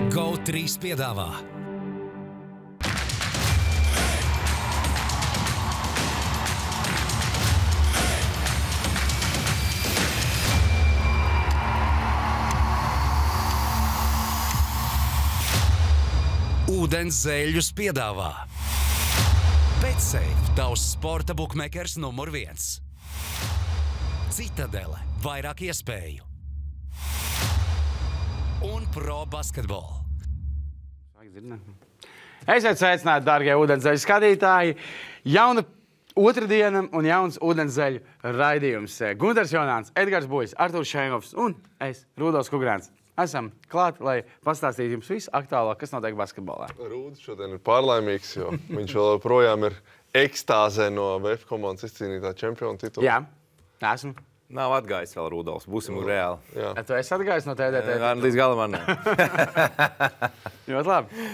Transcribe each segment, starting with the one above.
GO3 piedāvā Ūdens zeļus piedāvā BetSafe, tavs sporta bukmekers numur 1. Citadele, vairāk iespēju. Un Pro Basketball. Esiet sveicināti, dārgie ūdenszeļu skatītāji. Jauna otrdiena un jauns ūdenszeļu raidījums. Gunters Jonāns, Edgars Buļs, Artūrs Šeinovs un es, Rudolfs Kugrāns. Esam klāt, lai pastāstītu jums visu aktuālāko, kas notiek basketbolā. Rūdis šodien ir pārlaimīgs, jo viņš vēl projām ir ekstāzē no VF komandas izcīnītā čempiona titula. Jā, esmu. Nav atgājis vēl Rudolfs, būsim reāli. Jā. Tu esi atgājis no TDT? Līdz galam man ne. Ļoti labi.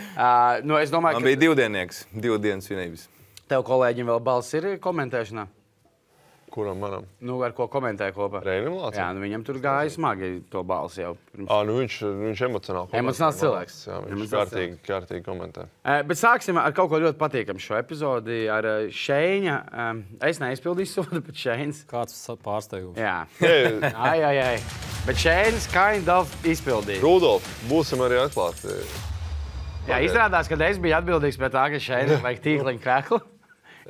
Es domāju, Man bija divdiennieks, 2 dienas svinības. Tev kolēģim vēl balss ir komentēšanā? Kuram manam? Ar ko komentē kopā? Reinim Lācim? Jā, viņam tur gāja smagi to balsi jau. Viņš emocionāli komentē. Emocionāls cilvēks. Jā, viņš kārtīgi komentē. Bet sāksim ar kaut ko ļoti patīkamu šo epizodi, ar Šeiņa. Es neizpildīju sodu, bet Šeiņs. Kāds pārsteigums? Jā. Ai. Bet Šeiņs kind of izpildīja. Rudolf, būsim arī atklāti. Jā, izrādās, ka es biju atbildīgs pēc tā, ka Šeiņam vajag tīkliņu kreklu.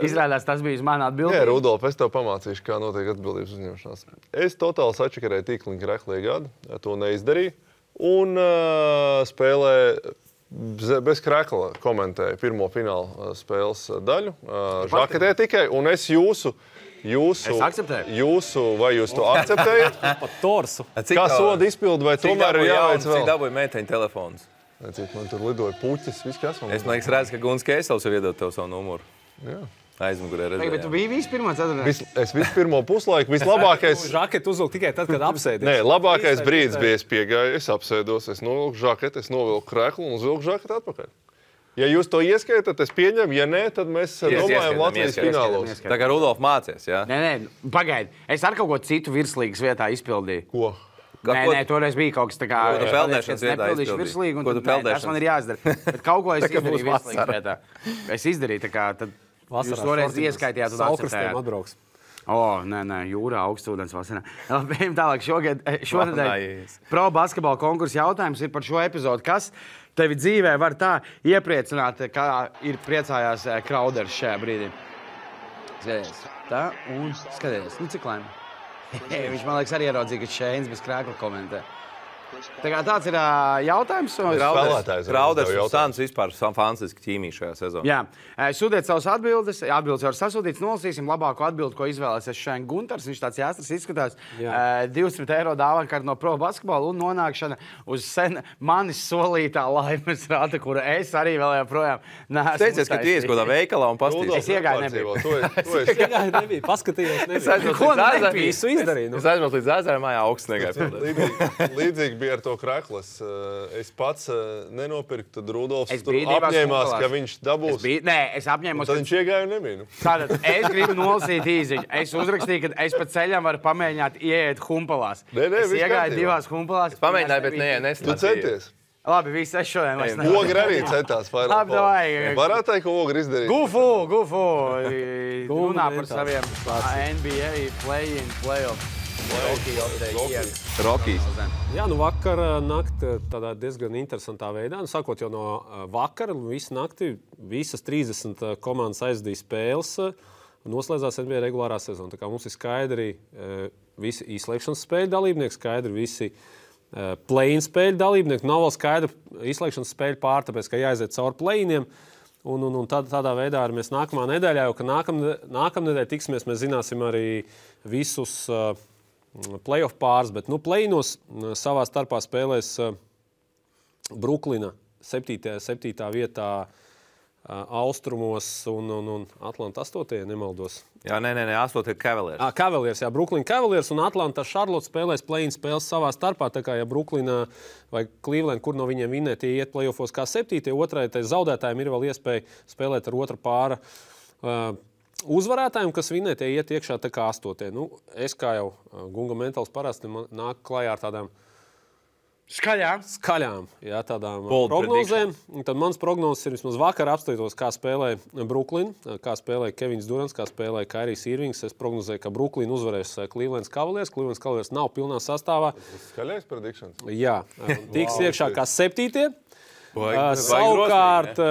Izrādās, tas bija uz mani atbildīgi. Jā, Rudolf, es tev pamācīšu, kā notiek atbildības uzņemšanās. Es totāli sačakarēju tīkliņu kreklu iegādi, to neizdarīju. Un spēlē bez krekla komentēju pirmo fināla spēles daļu. Žaketē tikai, un es jūsu... Es akceptēju. Vai jūs to akceptējat? Pat torsu. Kā soda izpildu, vai tomēr ir jāveic vēl? Cik dabūja meiteņu telefons? Cik man tur lidoja puķis, viss kas man... Es man liekas redzu, ka Guns Keisels ir iedot tev savu numuru. Jā. Aizmugurē redzēju. Bet tu biji vispirmā ceturtdienā? Es visu pirmo puslaiku, vislabākais... Žaketu uzvilku tikai tad, kad apsēdies. Nē, labākais brīdis bija, es piegāju, es apsēdos, es novilku žaketu, es novilku kreklu un uzvilku žaketu atpakaļ. Ja jūs to ieskaitat, es pieņemu, ja nē, tad mēs domājam Latvijas finālos. Tā kā Rudolf mācies, jā? Nē, pagaidi. Es ar kaut ko citu virslīgas vietā izpildīju. Ko? Nē, toreiz bija kaut kas tā kā... Ko tu peldēšanas vietā izpildīji? Ko tu peldēšanas? Tas man ir jāizdara. Bet kaut ko es izdarīju virslīgas vietā. Es izdarīju tā kā... Jūs toreiz ieskaitījāt un akceptējāt. Atbrauks. Nē, jūrā augstūdens vasarā. Bijām tālāk šonedēļ. Pro basketbola konkursa jautājums ir par šo epizodu. Kas tevi dzīvē var tā iepriecināt, kā ir priecājās Krauders šajā brīdī? Skaties. Tā un skaties. Cik laimi. Viņš man liekas arī ieraudzīja, ka Šeiņs bez krēkla komentē. Tā kā tāds ir jautājums. Krauders un Sans vispār fantastiski ķīmija šajā sezonā. Jā. Sūtiet savus atbildes. Atbildes jau ir sasūtīts. Nolasīsim labāko atbildi, ko izvēlēsies šodien Gunters. Viņš tāds jāstras izskatās. 200 eiro dāvankarte no Pro Basketbola un nonākšana uz sen manis solītā laimes rāta, kura es arī vēl joprojām neesmu. Teicies, ka tu ies kādā veikalā un pastīsi. Es iegāju nebiju. Es iegāju nebiju, paskatījos nebiju. Visu izdarīju. Es aizmirsu līdz ezera mājā augsts negāju. Līdzīgi bija ar to kreklu. Es pats nenopirku, tad Rudolfs tur apņēmās, ka viņš dabūs. Nē, es apņēmos. Tad viņš iegāja un nebija. Tātad es gribu nolasīt īziņu. Es uzrakstīju, ka es pa ceļam varu pamēģināt ieiet humpalās. Es iegāju 2 humpalās. Es pamēģināju, bet neslēdzīju. Tu centies? Labi, viss es šodien vairs nevaru. Ogri arī centās vairāk. Labi, davai. Varētu teikt, ka Ogri izdarīja. Gufu. Runā par saviem NBA play-in, play-off. Rokijs. Jā, vakar nakti tādā diezgan interesantā veidā. Sākot jau no vakara, visu nakti, visas 30 komandas aizdīja spēles, noslēdzās NBA regulārā sezona. Tā kā mums ir skaidri visi izslēgšanas spēļu dalībnieki, skaidri visi play-in spēļu dalībnieki. Nav vēl skaidra izslēgšanas spēļu pār, tāpēc, ka jāaiziet cauri play-iniem. Un tādā veidā arī mēs nākamā nedēļā, jo ka nākamnedēļ tiksimies, mēs zināsim arī visus playoff pāris, bet play-inos savā starpā spēlēs Bruklina 7. vietā austrumos un Atlanta 8. nemaldos. Jā, nē, 8. ir Cavaliers. Cavaliers, jā, Brooklyn Cavaliers un Atlanta Charlotte spēlēs play-in spēles savā starpā, tā kā ja Brooklyn vai Cleveland, kur no viņiem vinnē, tie iet playoffos kā 7. Otrai, tai zaudētājiem ir vēl iespēja spēlēt ar otra pāra uzvarētājiem, kas vinnē, tie iet iekšā tā kā 8. Es kā jau Gunga Mentāls parasti nāk klajā ar tādām Skaļām, jā, tādām prognozēm. Tad mans prognozes ir vismaz vakar apstātos, kā spēlē Brooklyn, kā spēlē Kevins Durants, kā spēlē Kairijs Irvings. Es prognozēju, ka Brooklyn uzvarēs Cleveland Cavaliers. Cleveland Cavaliers nav pilnā sastāvā. Skaļais predictions? Jā, tiks iekšā kā 7. Savukārt,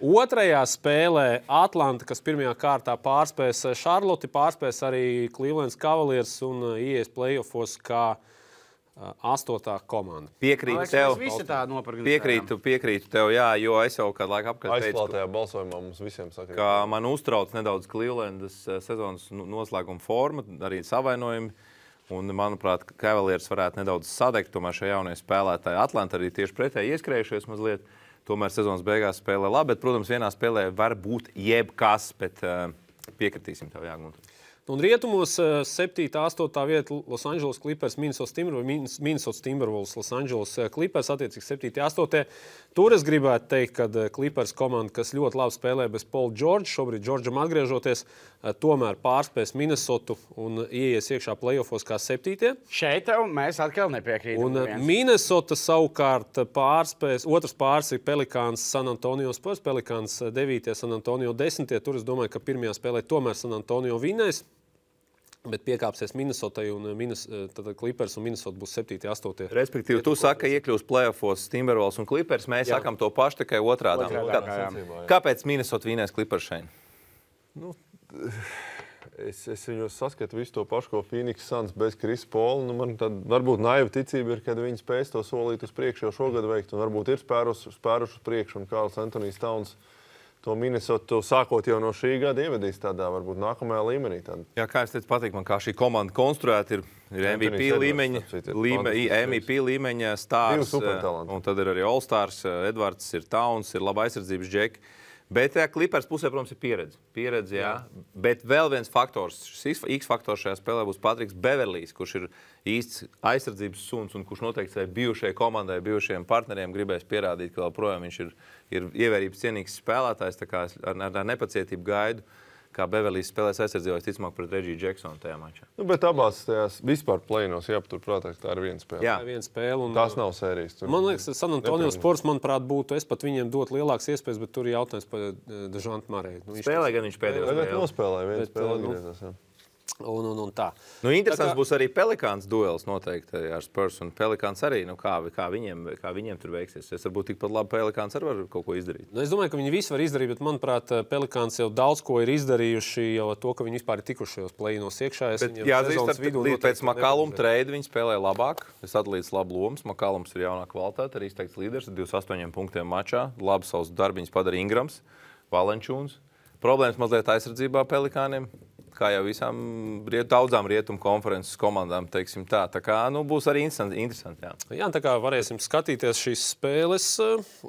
otrajā spēlē Atlanta, kas pirmajā kārtā pārspēs Charlotte, pārspēs arī Cleveland Cavaliers un ieies playoffos kā 8. komanda. Piekrītu tev. Piekrītu tev, jā, jo es jau kādu laiku apkārt teicu, aizklātajā balsojumā mums visiem saka, ka man uztrauc nedaudz Clevelandas sezonas noslēguma forma, arī savainojumi. Un, manuprāt, Cavaliers varētu nedaudz sadegt, tomēr šie jaunie spēlētāji Atlanta arī tieši pretēji ieskrējušies mazliet. Tomēr sezonas beigās spēlē labi, bet, protams, vienā spēlē var būt jebkas, bet piekritīsim tev, Jāgunter. Un rietumos 7. 8. vieta Los Angeles Clippers, Minnesota Timberwolves, Los Angeles Clippers, attiecīgi 7. 8. Tur es gribētu teikt, ka Clippers komanda, kas ļoti labi spēlē bez Paula George, šobrīd Georgeam atgriežoties, tomēr pārspēs Minnesotu un ieies iekšā playoffos kā 7. Šeit mēs atkal nepiekrītam. Un Minnesota savukārt pārspēs, otrs pārs ir Pelicans San Antonio Spurs, Pelicans 9. San Antonio 10. Tur es domāju, ka pirmajā spēlē tomēr San Antonio vinnēs. Bet piekāpsies Minnesotai un Clippers un Minnesota būs 7. 8. Respektīvi, tu saki, ka iekļūs playoffos Timberwolves un Clippers. Mēs sakam to pašu, tikai otrādā. Kāpēc Minnesota vinnēs Clippers šeit? Nu, es viņos saskatu visu to pašu, ko Phoenix Suns bez Chris Paula. Nu, man tad varbūt naiva ticība ir, kad viņi spēs to solīt uz priekšu jau šogad veikt. Un varbūt ir spēruši uz priekšu un Karls Antonijs Towns to Minnesota sākot jau no šī gada ievedīs tādā varbūt nākamajā līmenī. Jā, kā es teicu, patīk man, kā šī komanda konstruēta ir MVP līmeņa stārs, un tad ir arī All-Stars, Edvards, ir Towns, ir laba aizsardzības džeki. Bet Clippers pusē, protams, ir pieredze, jā. Bet vēl viens faktors, šis X-faktors šajā spēlē būs Patriks Beverlijs, kurš ir īsts aizsardzības suns un kurš noteikti bijušajai komandai, bijušajiem partneriem gribēs pierādīt, ka joprojām viņš ir ievērības cienīgs spēlētājs, tā kā ar nepacietību gaidu, kā Beverlijs spēlēs aizsardzībā, ticamāk pret Reggie Jacksonu tajā mačā. Nu, bet abās tajās vispār play-inos jāpaturprātā, ka tā ir viena spēle. Jā, viena spēle. Un, tās nav sērijas. Man liekas, San Antonio Spurs, manuprāt, būtu, es pat viņiem dotu lielākas iespējas, bet tur ir jautājums par Dežantu Marēju. Spēlē gan viņš pēdējo spēli. Bet nospēlēja viena spēle atgriezās, jā. Un tā. Nu, interesants būs arī Pelicans duels noteikti ar Spurs un Pelicans arī. Nu, kā viņiem tur veiksies? Es varbūt tikpat labi Pelicans arī var kaut ko izdarīt. Nu, es domāju, ka viņi visi var izdarīt, bet manuprāt, Pelicans jau daudz ko ir izdarījuši jau to, ka viņi vispār ir tikuši šajos play-inos iekšā. Pēc McCallum trade viņi spēlē labāk. Es atlīdzu labu lomas. McCallums ir jaunā kvalitāte, arī izteikts līderis ar 28 punktiem mačā. Labi savus darbiņus padara Ingrams, Valenčūns. Problēmas mazliet aizsardzībā Pelikāniem. Kā jau visām daudzām rietumu konferences komandām, teiksim tā. Tā kā, būs arī interesanti, jā. Jā, tā kā varēsim skatīties šīs spēles.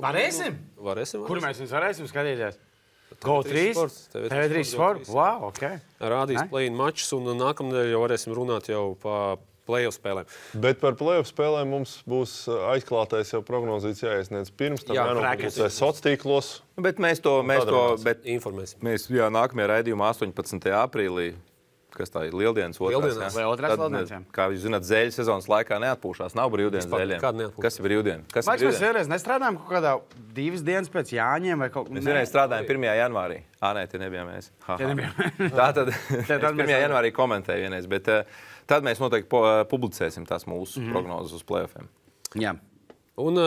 Varēsim? Varēsim. Kur mēs viņus varēsim skatīties? GO3 TV3 Sport? Wow, ok. Rādīs play-in mačus un nākamnedēļ jau varēsim runāt jau pa play-off spēlēm. Bet par play-off spēlēm mums būs aizklātais jau prognozīts jāiesniedz pirms tam jānopublicē sociālos. Bet mēs informēsim. Mēs nākamajā raidījumā 18. aprīlī, kas tā ir Lieldienas otrās. Vai otrās Lieldienas? Kā jūs zināt, zēļu sezonas laikā neatpūšās. Nav brīvdienas zēļiem. Kas ir brīvdiena? Mēs vienreiz nestrādājam kaut kādā 2 dienas pēc Jāņiem vai kaut kā. Mēs vienreiz strādājam 1. janvārī. Nē, tie nebijām mēs. Tātad 1. janvārī komentēju vienreiz, bet tad mēs noteikti publicēsim tās mūsu prognozes uz play-offiem. Jā. Un,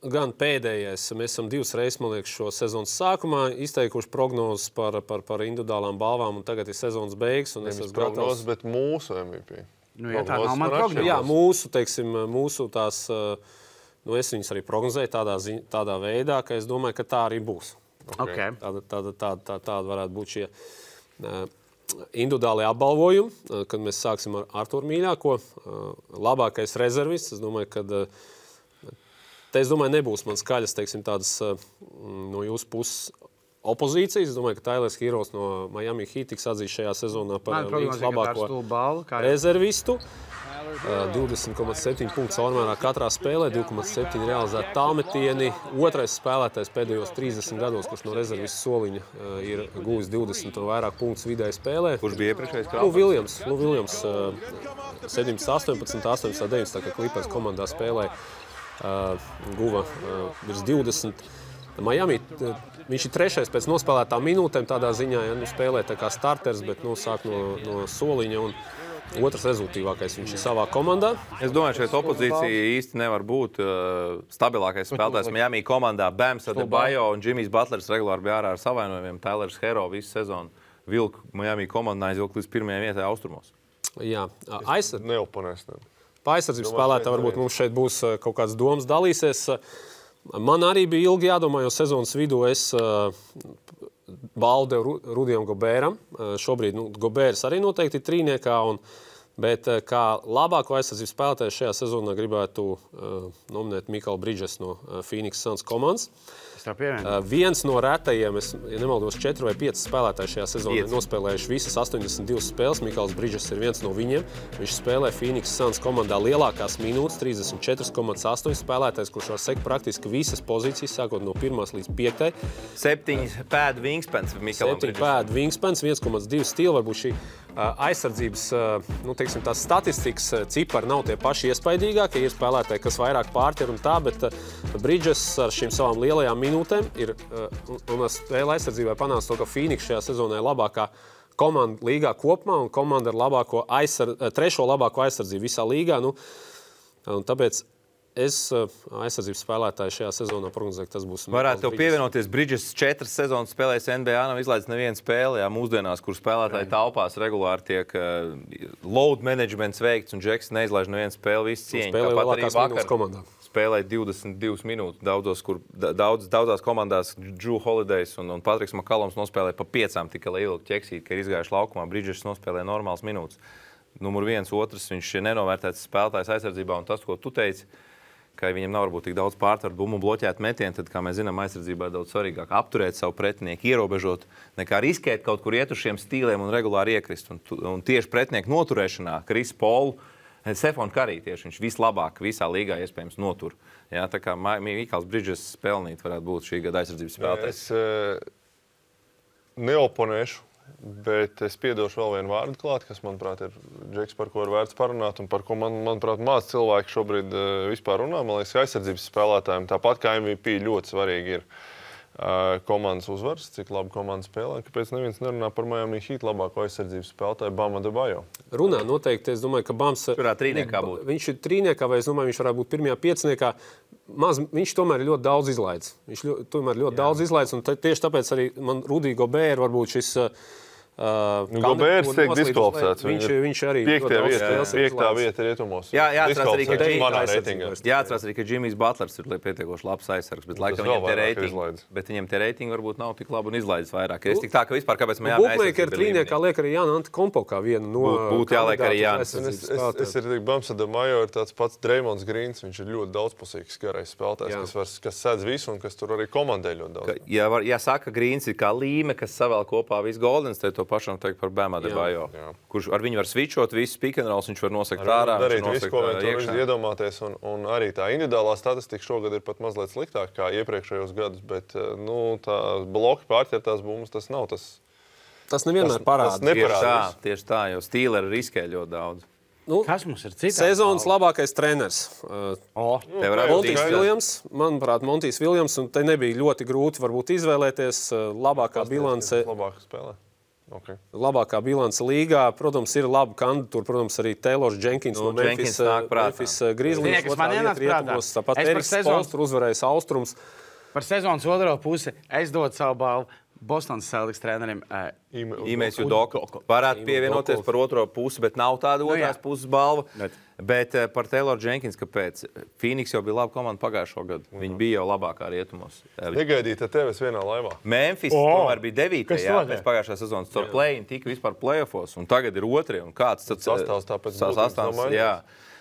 gan pēdējais, mēs esam 2 reizes, man liekas, šo sezonas sākumā izteikuši prognozes par individuālām balvām, un tagad ir sezonas beigas, un es esmu prognozes, bet mūsu MVP. Nu, jā, tā nav man prognozes. Jā, mūsu tās, es viņas arī prognozēju tādā veidā, ka es domāju, ka tā arī būs. Okay. Tāda varētu būt šie individuāli apbalvojumi, kad mēs sāksim ar Arturu Mīļāko, labākais rezervists. Es domāju, ka nebūs man skaļas, teiksim, tādas no jūsu puses opozīcijas. Es domāju, ka Tailers Heroes no Miami Heat tiks atzīts šajā sezonā par labāko rezervistu. 20,7 punktu caurmērā katrā spēlē, 2,7 realizēti tālmetieni. Otrais spēlētājs pēdējos 30 gados, kurš no rezervis soliņa ir guvis 20 un vairāk punktus vidēji spēlē. Kurš bija iepriekšējais Lou Williams 17, 18, 18, 19, kā Clippers komandā spēlēja, guva virs 20. Miami, viņš ir trešais pēc nospēlētām minūtēm tādā ziņā, ja spēlē tā kā starters, bet sāk no soliņa un otrs rezultīvākais viņš ir savā komandā. Es domāju, šeit opozīcija īsti nevar būt stabilākais spēlētājs Miami komandā. Bams Adebayo un Jimmys Butlers regulāri bija ārā ar savainojumiem. Tylers Hero visu sezonu vilku Miami komandā aizvilku līdz pirmajai vietai austrumos. Jā, Neoponēs. Pa aizsardzības spēlētā varbūt mums šeit būs kaut kāds domas dalīsies. Man arī bija ilgi jādomā, jo sezonas vidū es balvu devu Rudijam Gobēram. Šobrīd Gobērs arī noteikti ir trīniekā, bet kā labāko aizsardzības spēlētāju šajā sezonā gribētu nominēt Mikaelu Bridges no Phoenix Suns komandas. Viens no retajiem, ja nemaldos, 4 vai 5 spēlētāji šajā sezonā nospēlējuši visas 82 spēles. Mikaels Bridges ir viens no viņiem. Viņš spēlē Phoenix Suns komandā lielākās minūtes, 34,8 spēlētājs, kurš var sekt praktiski visas pozīcijas, sākot no 1. līdz 5. 7 pēdu wingspans Mikaelam Bridgesam. 7 pēdu wingspans, 1,2 stila. Varbūt šī aizsardzības, teiksim, tās statistikas cipari nav tie paši iespaidīgākie. Ir spēlētāji, kas vairāk pārķer un tā, bet Bridges ar šīm savām lielajām minūtēm ir un spēle aizsardzībai panāca to, ka Phoenix šajā sezonā ir labākā komanda līgā kopumā un komanda ar trešo labāko aizsardzību visā līgā. Un tāpēc es aizsardzības spēlētāju šajā sezonā prognozēju, ka tas būs. Varētu tev pievienoties. Bridges 4 sezonas spēlējis NBA, nav izlaidis nevienu spēli. Jā, mūsdienās, kur spēlētāji taupās, regulāri tiek load managements veikts un Džeks neizlaiž nevienu spēli, visu cieņu. Spēlēja lielākās minūtes komandā. Spēlēja 22 minūtes daudzās komandās. Drew Holidays un Patriks Makaloms nospēlēja pa 5 tikai lai ilgi ķeksīt, ka ir izgājuši laukumā. Bridges nospēlēja normāls minūtes. Numur 1, otrs, viņš ir nenovērtēts spēlētājs aizsardzībā, un tas, ko tu teici, ka viņam nav varbūt tik daudz pārtvaru bumbu bloķēt metienu, tad, kā mēs zinām, aizsardzībā ir daudz svarīgāk apturēt savu pretinieku, ierobežot, nekā riskēt kaut kur iet uz šiem stīliem un regulāri iekrist. Un tieši pretinieku noturēšanā Chris Paul, Stephon Curry tieši, viņš vislabāk visā līgā iespējams notur. Jā, tā kā Mikaels Bridges pelnīt varētu būt šī gada aizsardzības spēlētājs. Es neoponēšu. Bet es piedošu vēl vienu vārdu klāt, kas, manuprāt, ir Džeks, par ko ir vērts parunāt un par ko, manuprāt, maz cilvēki šobrīd vispār runā. Man liekas, aizsardzības spēlētājiem tāpat kā MVP ļoti svarīgi ir komandas uzvaras, cik labi komanda spēlē. Kāpēc neviens nerunā par Miami Heat labāko aizsardzības spēlētāju Bam Adebayo? Runā noteikti. Es domāju, ka Bams viņš ir trīniekā, vai es domāju, viņš varētu būt pirmajā piecniekā. Viņš tomēr ir ļoti daudz izlaidis. Un tieši tāpēc arī man Rudī Gobēra varbūt šis Gobērs tiek diskvalificēts. Viņš arī 5. vieta rietumos. Jāatcerās arī, ka Jimmys Butlers ir pietiekoši labs aizsargs, bet laikam viņam tie reitingi varbūt nav tik labi un izlaidis vairāk. Es tik tā, ka vispār kāpēc mēs Bookmaker trīniekā liek arī Jāna Antetokounmpo kā vienu no būtu jāliek arī Jānis. Es ir tik Bams Adebayo ir tāds pats Draymonds Greens, viņš ir ļoti daudzpusīgs garais spēlētājs, kas sēdz visu un kas tur arī komandē ļoti daudz. Ja saka, Greens ir kā līme, kas savēl kopā visu Golden State, to pašam teikt par Bam Adebayo, kurš ar viņu var switchot visu pick and rolls, viņš var nosakt ārā, darīt visu, ko viņš iedomāties, un arī tā individuālā statistika šogad ir pat mazliet sliktāk kā iepriekšējos gadus, bet tā bloki pārķertās bumbas, tas nav tas. Tas nevienmēr parādās. Tieši tā, jo Steelers riskē ļoti daudz. Kas mums ir cits? Sezonas labākais treneris. Montijs Viljams. Manuprāt, Montijs Viljams, un te nebija ļoti grūti varbūt izvēlēties labākā bilance. Labāk spēlē. Okay. Labākā bilance līgā. Protams, ir laba kandidatūra. Protams, arī Taylors Jenkins no Memphis Grizzlies. Tāpat Eriks Spoelstra uzvarējis Austrums. Par sezonas otro pusi es dotu savu balvu Bostonas Celtics trenerim Imēs Udoka. Varētu pievienoties par otro pusi, bet nav tāda otrās puses balva. Bet par Taylor Jenkins, kāpēc? Phoenix jau bija laba komanda pagājušo gadu. Viņi bija jau labākā rietumos. Negaidīt tevis vienā laivā. Memphis tomēr bija 9. pēc pagājušā sezonas. Tur play-in tika vispār play-offos, un tagad ir 2. Un kāds sastāvs tāpēc sastāvs, jā.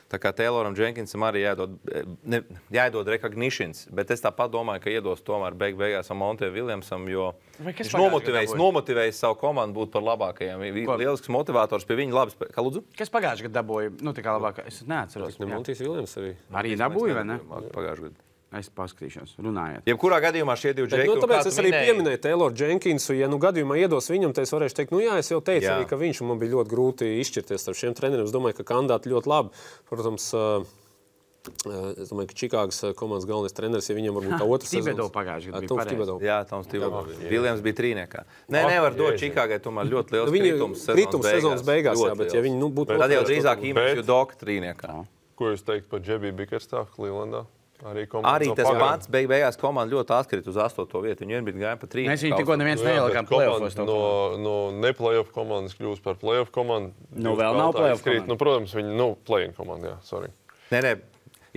Tā kā Tayloram Jenkinsam arī jāiedod recognitions, bet es tāpat domāju, ka iedos tomēr beigās Monte Williamsam, jo viņš nomotivējis savu komandu būt par labākajiem. Lielisks motivators pie viņa labi spēlē. Kā lūdzu? Kas pagājušajā gadā dabūja? Nu, tā kā labāk. Es neatceros. Montijs Williams arī. Arī dabūja, vai ne? Pagājušajā gadā. Es paskatīšos, runājiet. Jebkurā gadījumā šie divi džeki. Tāpēc es arī pieminēju Tayloru Jenkinsu. Ja gadījumā iedos viņam, tad es varēšu teikt, es jau teicu, arī, ka viņš man bija ļoti grūti izšķirties ar šiem treneriem. Es domāju, ka kandidāti ļoti labi. Protams, es domāju, ka Čikāgas komandas galvenais treneris, ja viņam varbūt tā otrs sezons. Tibedo pagājušajā gadā bija pareizi. Jā, Toms Tibedo. Viljams bija trīniekā. Nevar dot Čikāgai tomēr ļoti liels kritums sezonas beigās. Jā, bet ja viņi būtu... Tad jau drīzāk īmēšu Doka trīniekā. Ko jūs teikt par Džebiju Bickerstaffu Clevelandā? Arī tas pats beigās komanda ļoti atkrita uz 8. vietu. Viņi vienbrīd gāja pa 3. Mēs viņu tikko neviens neielikām play-offos. No ne-playoff komandas kļūst par playoff komandu. Vēl nav playoff komanda. Protams, viņi play-in komanda, jā, sorry. Nē,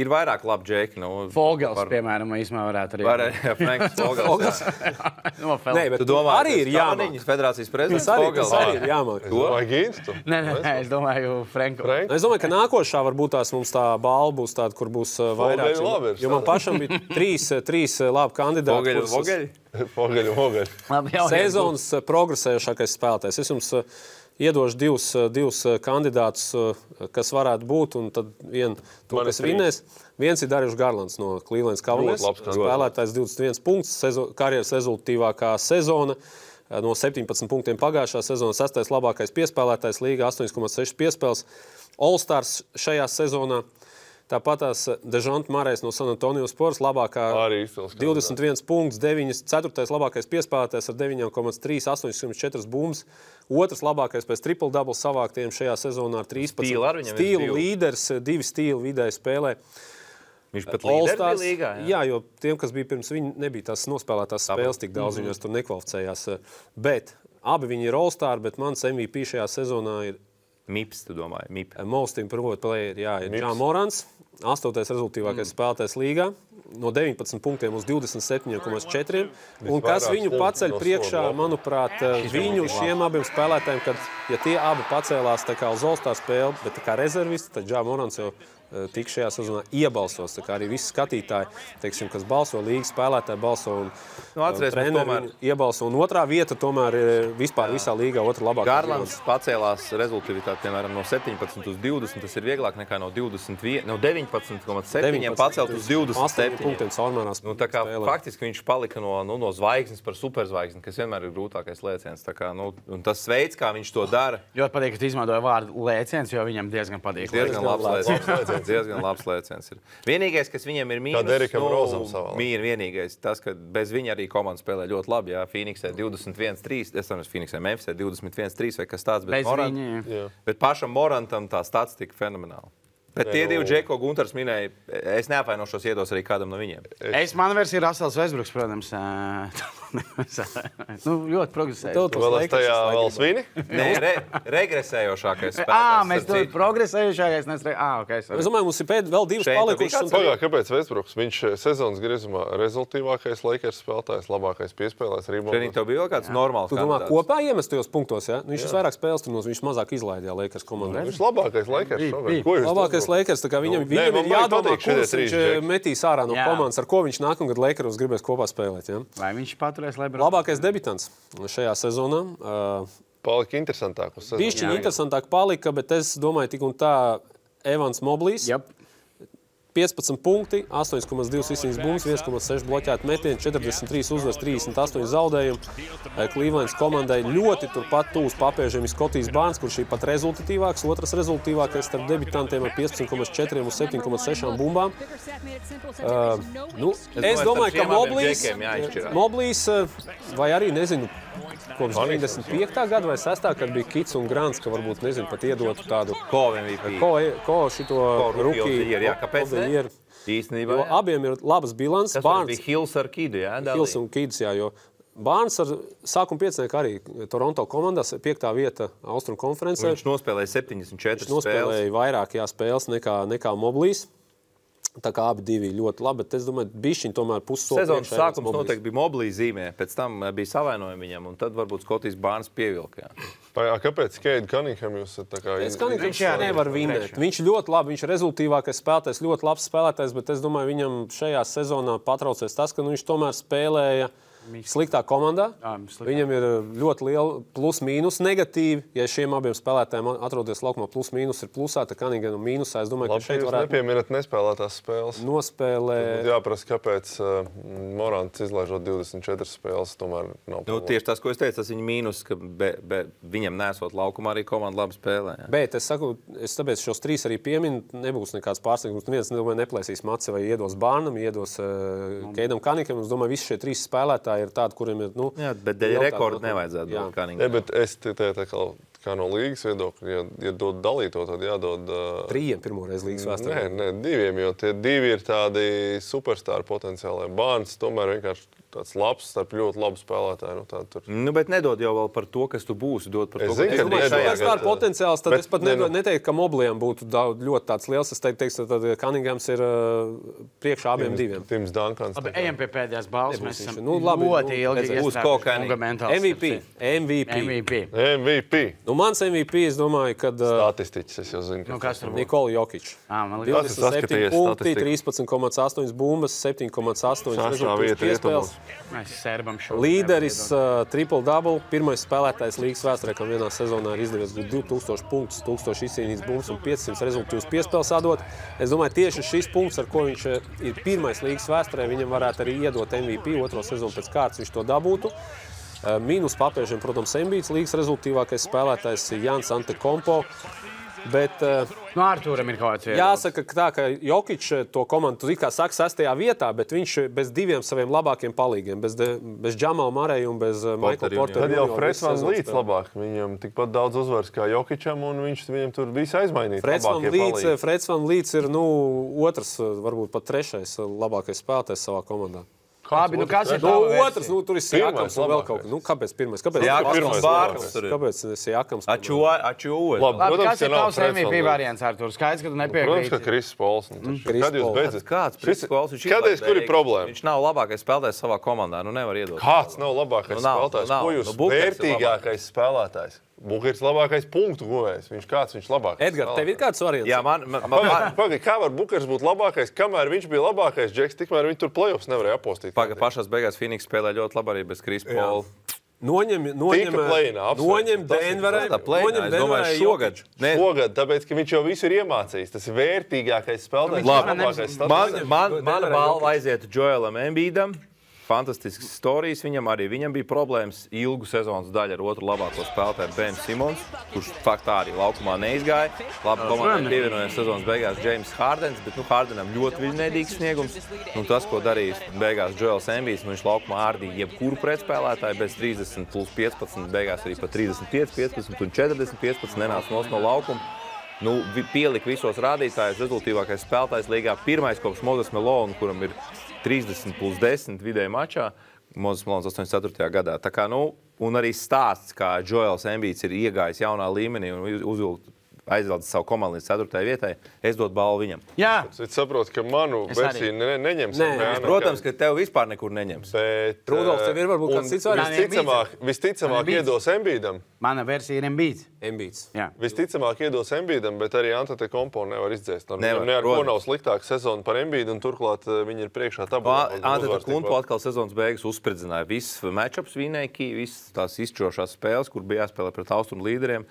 ir vairāk labi džeki. Fogels, piemēram, īsumā varētu arī. Jā, Franks Fogels. Nē, bet tu domā, arī ir jāmāk. Federācijas prezidents Fogels. Arī ir jāmāk. Vai Gīnstu? Nē, es domāju Franku. Es domāju, ka nākošā varbūt tās mums tā balva būs tāda, kur būs vairāk. Jo man pašam bija trīs labi kandidāti. Vogeļi. Sezonas progresējošākais spēlētājs. Es jums iedošu divus kandidātus, kas varētu būt, un tad kas vinnēs. Viens ir Darjušs Garlands no Cleveland Cavaliers. Spēlētājs 21 punkts, karjeras rezultātīvākā sezona. No 17 punktiem pagājušā sezona, 6. labākais piespēlētājs līgā, 8,6 piespēles. All-Stars šajā sezonā. Tāpat tās Dežonta Marejs no San Antonio Spurs, labākā 21 punkts, 4. labākais piespēlētājs ar 9,3, 8,4 bumbas. Otrs labākais pēc triple-double savāktiem šajā sezonā ar 13. Stīlu līderis, 2 stīlu vidēji spēlē. Viņš pat līderis līgā, jā, jo tiem, kas bija pirms viņa, nebija tās nospēlētās spēles tik daudz, viņos tur nekvalificējās. Bet abi viņi ir All-Star, bet mans MVP šajā sezonā ir MIPS, tu domāji? MIP. Most improved player, jā, ir Ja Morants, 8. rezultīvākais spēlētājs līgā, no 19 punktiem uz 27,4. Un kas viņu paceļ priekšā, manuprāt, viņu šiem abiem spēlētājiem, kad, ja tie abi pacēlās tā kā uz All-Star spēli, bet tā kā rezervisti, tad Ja Morants jau tik šajā sezonā iebalsos. Tā kā arī visi skatītāji, teiksim, kas balso, līgas spēlētāji balso un treneri iebalso. Un otrā vieta tomēr ir vispār visā līgā otra labākā. Garlands pacēlās rezultātivitāti, piemēram, no 17 uz 20. Tas ir vieglāk nekā no 19,7 pacelt uz 27 punktiem caurmērās. Tā kā faktiski viņš palika no zvaigznes par superzvaigzni, kas vienmēr ir grūtākais lēciens. Tā kā, un tas veids, kā viņš to dara. Ļoti patīk, ka tu izmantoji vārdu lēciens, jo viņam diezgan patīk. Diezgan labs lēciens ir. Vienīgais, kas viņam ir mīnus, vienīgais tas, ka bez viņa arī komanda spēlē ļoti labi. Jā, Phoenixē 21-3, es saprotu, Phoenixē Memphisē 21-3 vai kas tāds, bet pašam Morantam tā statistika fenomenāla. Bet tie divi džeki, ko Guntars minēja, es neapvainošos, iedos arī kādam no viņiem. Mana versija ir Russells Westbrooks, protams. Ļoti progresējošs. Tu vēl esi tajā vēl svini? Nē, regresējošākais spēlētājs. Mēs tur progresējošākais. Es domāju, mums ir vēl divas palikušas. Kāpēc Westbrooks? Viņš sezonas griezumā rezultīvākais Lakers spēlētājs, labākais piespēlējs reboundos. Šeit tev bija kāds normāls kandidāts. Tu domā kopā iemestajos punktos, jā? Viņš vairāk spēles tur, viņš mazāk izlaidīja Lakers komandā. Viņš labākais Lakers. Lakers, tā kā viņam ir jādomā, kurš viņš metīs ārā no komandas, ar ko viņš nākamgad Lakeros gribēs kopā spēlēt. Ja? Vai viņš paturēs Lebronu? Labākais debitants šajā sezonā. Palika interesantāk uz sezonu. Bišķiņ interesantāk palika, bet es domāju tik un tā Evans Moblīs. Yep. 15 punkti, 8,2 izcīnītas bumbas, 1,6 bloķēti metieni, 43 uzvaras, 38 zaudējumi. Clevelands komandai ļoti turpat tūs papēžiem ir Skotijs Barnes, kurš ir pat rezultatīvāks, otrs rezultatīvākais starp debitantiem ar 15,4 uz 7,6 bumbām. Es domāju, ka Moblīs vai arī, nezinu, kopš 95. gada vai 6. kad bija Kits un Grants, ka varbūt, nezinu, pat iedotu tādu ko šito rookie. Kāpēc ne? Īstenībā, jo abiem ir labas bilants. Tas bija Hills ar Kidu, jā? Hills un Kids, jā, jo Barnes ar sākuma piecnieku arī Toronto komandās 5. vieta Austrum konferencē. Viņš nospēlēja 74 spēles. Viņš nospēlēja vairāk spēles nekā Moblīs. Tā kā abi divi ļoti labi, bet es domāju, bišķiņ tomēr pussoli. Sezonas sākums noteikti bija Moblī zīmē, pēc tam bija savainojumi viņam, un tad varbūt Skotijs Bārns pievilka. Kāpēc Keita Cunningham jūs tā kā... Viņš nevar vinēt. Viņš ļoti labi, viņš ir rezultīvākais spēlētājs, ļoti labs spēlētājs, bet es domāju, viņam šajā sezonā patraucies tas, ka viņš tomēr spēlēja sliktā komandā. Viņam ir ļoti liela plus-mīnus negatīvi. Ja šiem abiem spēlētājiem atrodas laukumā plus-mīnus ir plusā, tad Cunningham mīnusā. Es domāju, ka šeit varētu... Nepieminat nespēlētās spēles. Nospēlē... Jāprasa, kāpēc Morants izlaižot 24 spēles, tomēr nav problēma. Tieši tas, ko es teicu, tas viņa mīnus, ka viņam nesot laukumā arī komanda labi spēlē. Jā. Bet es saku, es tāpēc šos 3 arī pieminu, nebūs nekāds pārsteigums. Neviens, domāju, neplēsīs maci vai iedos Bārnam, iedos Keitam Cunningham. Es domāju, visi šie 3 spēlētāji ir tādi, kuriem ir, jā, bet dēļ rekordu nevajadzētu dot Cunningham. Jā, bet es tā kā no līgas viedokļa, ja dod dalīto, tad jādod... 3 pirmoreiz līgas vēsturē. Nē, 2, jo tie 2 ir tādi superstāri potenciāli. Bārns tomēr vienkārši tāds labs, starp ļoti labu spēlētāju. Bet nedod jau vēl par to, kas tu būsi. Dod par to, es domāju, ka tas ir potenciāls, tad es pat neteiktu, ka Mobliem būtu ļoti tāds liels. Es teiktu, tad Cunninghams ir priekšā abiem 2. Tims Duncans. Labi, ejam pie pēdējās balvas. Mēs esam ļoti ilgi būs MVP. Mans MVP, es domāju, kad... Statistiķis, es jau zinu. Nikola Jokić. 27 punkti, 13,8 bumbas, 7,8 rezultātus piespēles. Līderis triple-double, pirmais spēlētājs līgas vēsturē, kam vienā sezonā ir izdevies 2000 punktus, 1000 izcīnītas bumbas un 500 rezultātus piespēles atdot. Es domāju, tieši šis punkts, ar ko viņš ir pirmais līgas vēsturē, viņam varētu arī iedot MVP, 2. sezonu pēc kārtas viņš to dabūtu. Mīnus papēžiem, protams, Embiids, līgas rezultīvākais spēlētājs Jans Antetokounmpo. Bet Artūram ir kaut kāds viedoklis. Jāsaka, ka Jokić to komandu kā saka 6. vietā, bet viņš bez 2 saviem labākiem palīgiem, bez Džamala Murraya un bez Michaela Portera. Tad jau Freds Van Vliets labāk. Viņam tikpat daudz uzvaras kā Jokićam, un viņam tur visu aizmainīt. Freds Van Vliets ir 2, varbūt pat 3. labākais spēlētājs savā komandā. Labi, kas ir otrs? Tur ir Siakams un vēl kaut kas. Kāpēc pirmais? Kāpēc Siakams? Labi, kas ir tavs MVP variants, Artur? Skaidrs, ka tu nepiekrīti. Protams, ka Kris Pols. Kad jūs beidzat? Kāds Kris Pols? Kādreiz, kur ir problēma? Viņš nav labākais spēlētājs savā komandā. Nevar iedot. Kāds nav labākais spēlētājs? Ko jūs vērtīgākais spēlētājs? Bukers labākais punktu guvējs. Viņš labākais. Edgar, tev ir kāds variants? Jā, Pagaid, kā var Bukers būt labākais, kamēr viņš bija labākais Džeks, tikmēr viņi tur playoffs nevarēja apostīt. Pašās beigās Phoenix spēlē ļoti labi arī bez Kris Pola. Noņem Denverai. Šogad, tāpēc, ka viņš jau visu ir iemācījis. Tas ir vērtīgākais spēlētājs. Mana balva aiziet Joelam Embiidam. Fantastisks stāsts. Viņam bija problēmas ilgu sezonas daļu ar otru labāko spēlētāju Ben Simons, kurš faktā arī laukumā neizgāja. Labi, komandai pievienojās sezonas beigās James Hardens, bet Hardenam ļoti viļņēdīgs sniegums. Tas, ko darīs beigās Joels Embiids, viņš laukumā ārdīja jebkuru pretspēlētāju bez 30 plus 15, beigās arī pat 35, 15 un 40, 15 nenāca no laukuma. Pielika visos rādītājus, rezultīvākais spēlētājs līgā. Pirmais kopš Moses Malone, kuram ir 30 plus 10 vidēji mačā, Moses Malone 84. gadā. Tā kā, un arī stāsts, kā Joels Embiids ir iegājis jaunā līmenī un aizvelcis savu komandu līdz 4. vietai, es dotu balvu viņam. Jā. Es saprotu, ka manu versiju neņems. Protams, ka tev vispār nekur neņems. Bet Rudolfs, tev ir varbūt kāds cits variants? Visticamāk iedos Embiidam. Mana versija ir Embiids. Visticamāk iedos Embiidam, bet arī Antetokounmpo nevar izdzēst. Ne ar ko nav sliktāka sezona par Embiidu, un turklāt viņi ir priekšā tabulā. Antetokounmpo atkal sezonas beigas uzspridzināja. Viss matchups vinēja, visas tās izšķirošās spēles, kur bija jāspēlē pret austrumu līderiem.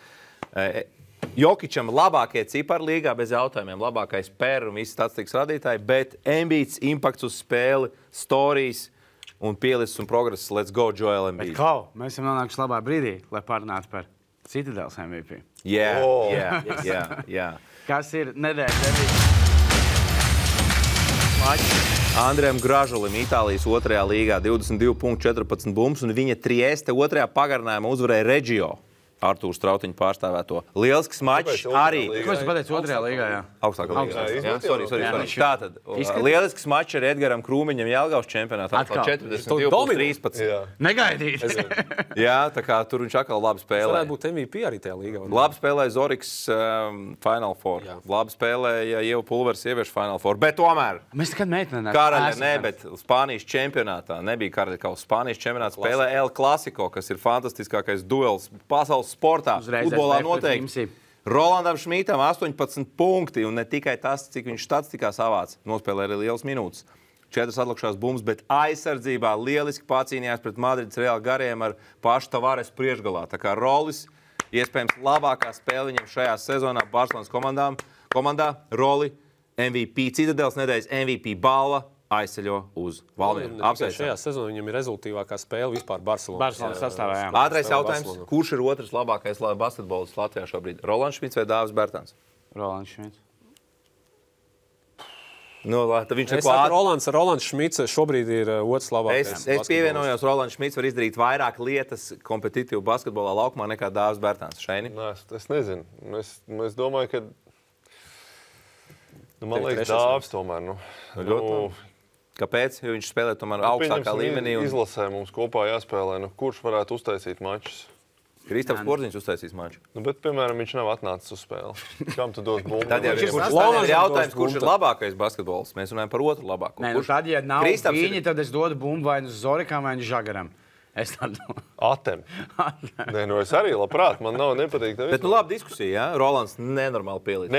Jokićam labākie cipari līgā bez jautājumiem, labākais per un visi statistikas radītāji, bet Embiids, impakts uz spēli, storijas un pielicis un progress. Let's go, Joel Embiid. Mēs esam nonākuši labā brīdī, lai parunātu par Citadels MVP. Jā. Kas ir nedēļas MVP? Andrejam Gražulim, Itālijas 2. līgā, 22 punktu, 14 bumbas, un viņa Trieste 2. pagarinājumā uzvarēja Reggio. Artūrs Strautiņa pārstāvēto. Lielisks mačs arī. Ko tu pateici otrajā līgā? Jā. Augstākā līgā. Jā, sorry. Tātad, lielisks mačs ar Edgaram Krūmiņam Jelgavas čempionātā. 42-13. Negaidīt. Jā, tā kā tur viņš atkal labi spēlē. Varētu būt MVP arī tajā līgā. Labi spēlēja Zoriks Final Four. Labi spēlēja Ieva Pulvers sieviešu Final Four. Bet tomēr mēs nekad meitenē. Karaļa bet Spānijas čempionātā. Nebija Karaļa kausa. Spānijas čempionātā spēlē El Clasico, kas ir fantastiskākais duels pasaules sportā. Futbolā noteikti. Rolandam Šmītam 18 punkti, un ne tikai tas, cik viņš statistikā savāc. Nospēlē arī lielas minūtes. 4 atlikušās bumbas, bet aizsardzībā lieliski pacīnījās pret Madrides Real gariem ar pašu Tavares priekšgalā. Tā kā Rolis, iespējams, labākā spēle viņam šajā sezonā Barcelonas komandā. Roli, MVP, Citadeles nedēļas MVP balva. Aizceļo uz Valmieru. Šajā sezonā viņam ir rezultīvākā spēle vispār Barcelonas sastāvā. Ātrais jautājums. Kurš ir otrs labākais basketbolists Latvijā šobrīd? Rolands Šmits vai Dāvis Bērtāns? Rolands Šmits. Rolands Šmits šobrīd ir otrs labākais. Es pievienojos, Rolands Šmits var izdarīt vairāk lietas kompetitīvu basketbolā laukumā nekā Dāvis Bērtāns. Šeini? Es nezinu. Es domāju, ka man liekas Dāvis tomēr. Kāpēc? Jo viņš spēlē tomēr augstākā līmenī. Izlasē mums kopā jāspēlē. Kurš varētu uztaisīt mačus? Kristaps Porziņš uztaisīs maču. Bet, piemēram, viņš nav atnācis uz spēli. Kam tu dod bumbu? Tad jau ir jautājums, kurš ir labākais basketbols. Mēs runājam par otru labāko. Tad, ja nav viņi, tad es dodu bumbu vai nu Zorikam vai nu Žagaram. Es tādu Atem. Nē, es arī labprāt. Man nav nepatīk. Bet labi diskusija, jā? Rolands nenormāli pielīdz.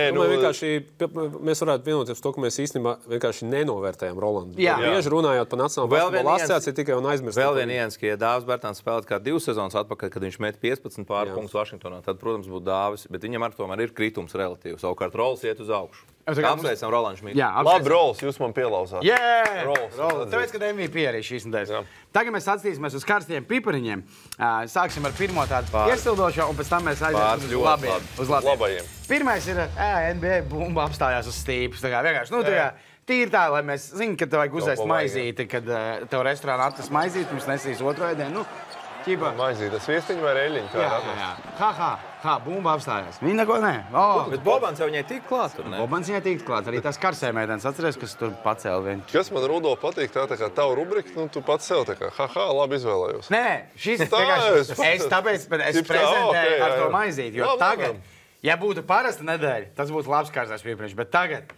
Mēs varētu vienoties to, ka mēs īstenībā vienkārši nenovērtējam Rolandu. Bieži runājot par Nacionālo basketbola asociāciju tikai un aizmirst. Vēl vien Jens, ka ja Dāvis Bērtāns spēlēt kā 2 sezonas atpakaļ, kad viņš met 15 pāri punktus Vašingtonā, tad, protams, būtu Dāvis, bet viņam ar tomēr ir kritums relatīvi. Savukārt Rols iet uz augšu. Apsveicam Rolandu Šmitu. Labi, Rols, jūs man pielauzāt. Rols. Tāpēc, kad MVP arī šīs nedēļas. Tagad mēs atskatīsimies uz karstiem pipariņiem. Sāksim ar pirmo tādu iesildošo, un pēc tam mēs aiziesim uz labajiem. Pirmais ir NBA bumba apstājās uz stīpus. Vienkārši, tīri tā, lai mēs zinām, ka tev vajag uzēst maizīti, kad tev restorānā atnes maizīti, pirms nesīs otro ēdienu. Maizīte, sviestiņa vai reļiņa? Jā, bumba apstājās. Viņa neko nē. Bet Bobans jau viņai tīk klāt, tur ne? Bobans viņai tīk klāt. Arī tas karsēmēdienas atceries, kas tur pacēla viņu. Kas man, Rudo, patīk, tā kā tavu rubrika, tu pats sev tā kā, labi izvēlējos. Nē, šis vienkārši, es prezentēju ar to maizīti, jo tagad, ja būtu parasta nedēļa, tas būtu labs karsās piepriekš, bet tagad,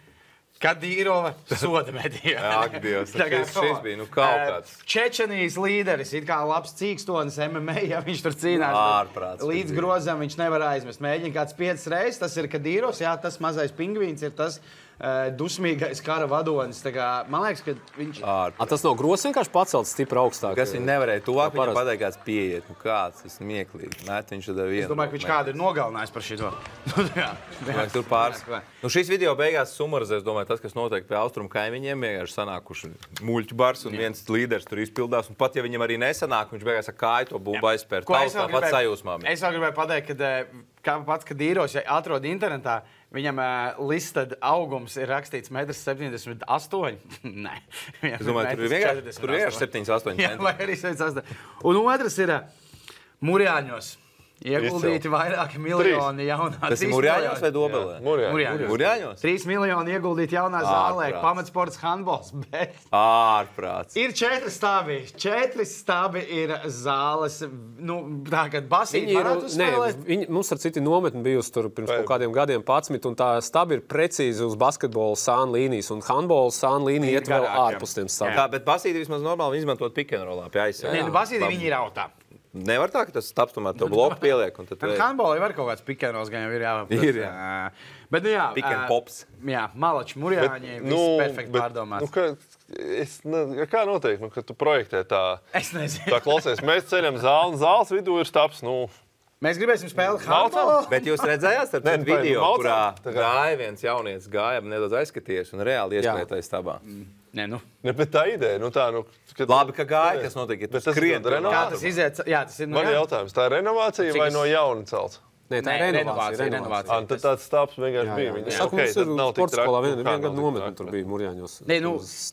kad Dīrova soda medījā. Ak, Dievs, šis bija, kaut kāds. Čečenijas līderis, it kā labs cīkstonis MMA, ja viņš tur cīnās. Līdz grozam viņš nevar aizmest. Mēģina kāds 5 reizes, tas ir Kadīrovs, tas mazais pingvīns ir tas dusmīgais kara vadonis. Man liekas, ka viņš... Tas nav grozs vienkārši pacelts stipri augstāk. Kas viņi nevarēja tuvāk, viņam pateikt kāds pieiet. Kāds, tas smieklīgi. Viņš tad vienu. Es domāju, ka viņš kādu ir nogalinājis par šito. Tur pāris. Šīs video beigās sumarizēs, domāju, tas, kas notiek pie austrumu kaimiņiem, vienkārši sanākuši muļķu bars un viens līderis tur izpildās. Un pat, ja viņam arī nesanāk, viņš beigās ar kāju to bumbu aizspērt. Tāpat sajūsmā. Es vēl gribēju pateikt, ka pats, kad Dīros atrod internetā, viņam listed augums ir rakstīts 1,78 m. Nē. Es domāju, tur ir 78 cm. Jā, vai arī 78. Un otrs ir Murjāņos. Ieguldīti vairāki miljoni jaunā. Tas ir Murjāņos vai Dobelē? Murjāņos. 3 miljoni ieguldīti jaunā zālē. Pamatsports handbols. Bet ārprāts. Ir 4 stābi. 4 stābi ir zāles. Tā, kad basīti varētu uzspēlēt. Mums ar citi nometni bijusi tur pirms kaut kādiem gadiem 11, un tā stabi ir precīzi uz basketbola sāna līnijas, un handbola sāna līnija iet vēl ārpus tiem stābiem. Tā, bet basīti vismaz normāli izmantot pick and rollā pie aizsardzības. Nē, basīti viņi ir autā. Nevar tā, ka tas stāps tomēr to bloku pieliek. Handbolā var kaut kāds pikenos, gan jau ir jāapprot. Ir, jā. Bet, Pick and pops. Jā, Malači, Murjāņi, viss perfekti pārdomāts. Kā notiek, kad tu projektē tā? Es nezinu. Tā klausies, mēs ceļam zāli, un zāles vidū ir staps, Mēs gribēsim spēlēt handbolu. Bet jūs redzējāt ar video, kurā gāja viens jaunietis, nedaudz aizskaties un reāli iespētais stabā. Nē, bet tā ideja, Labi, ka gāja, kas notiek, ja tu skrien. Kā tas iziet? Jā, tas ir Man ir jautājums, tā ir renovācija vai no jauna celts? Nē, tā ir renovācija. Tad tāds stāps vienkārši bija. Es saku, mums ir sporta skolā viena gada nometne, tur bija Murjāņos. Nē,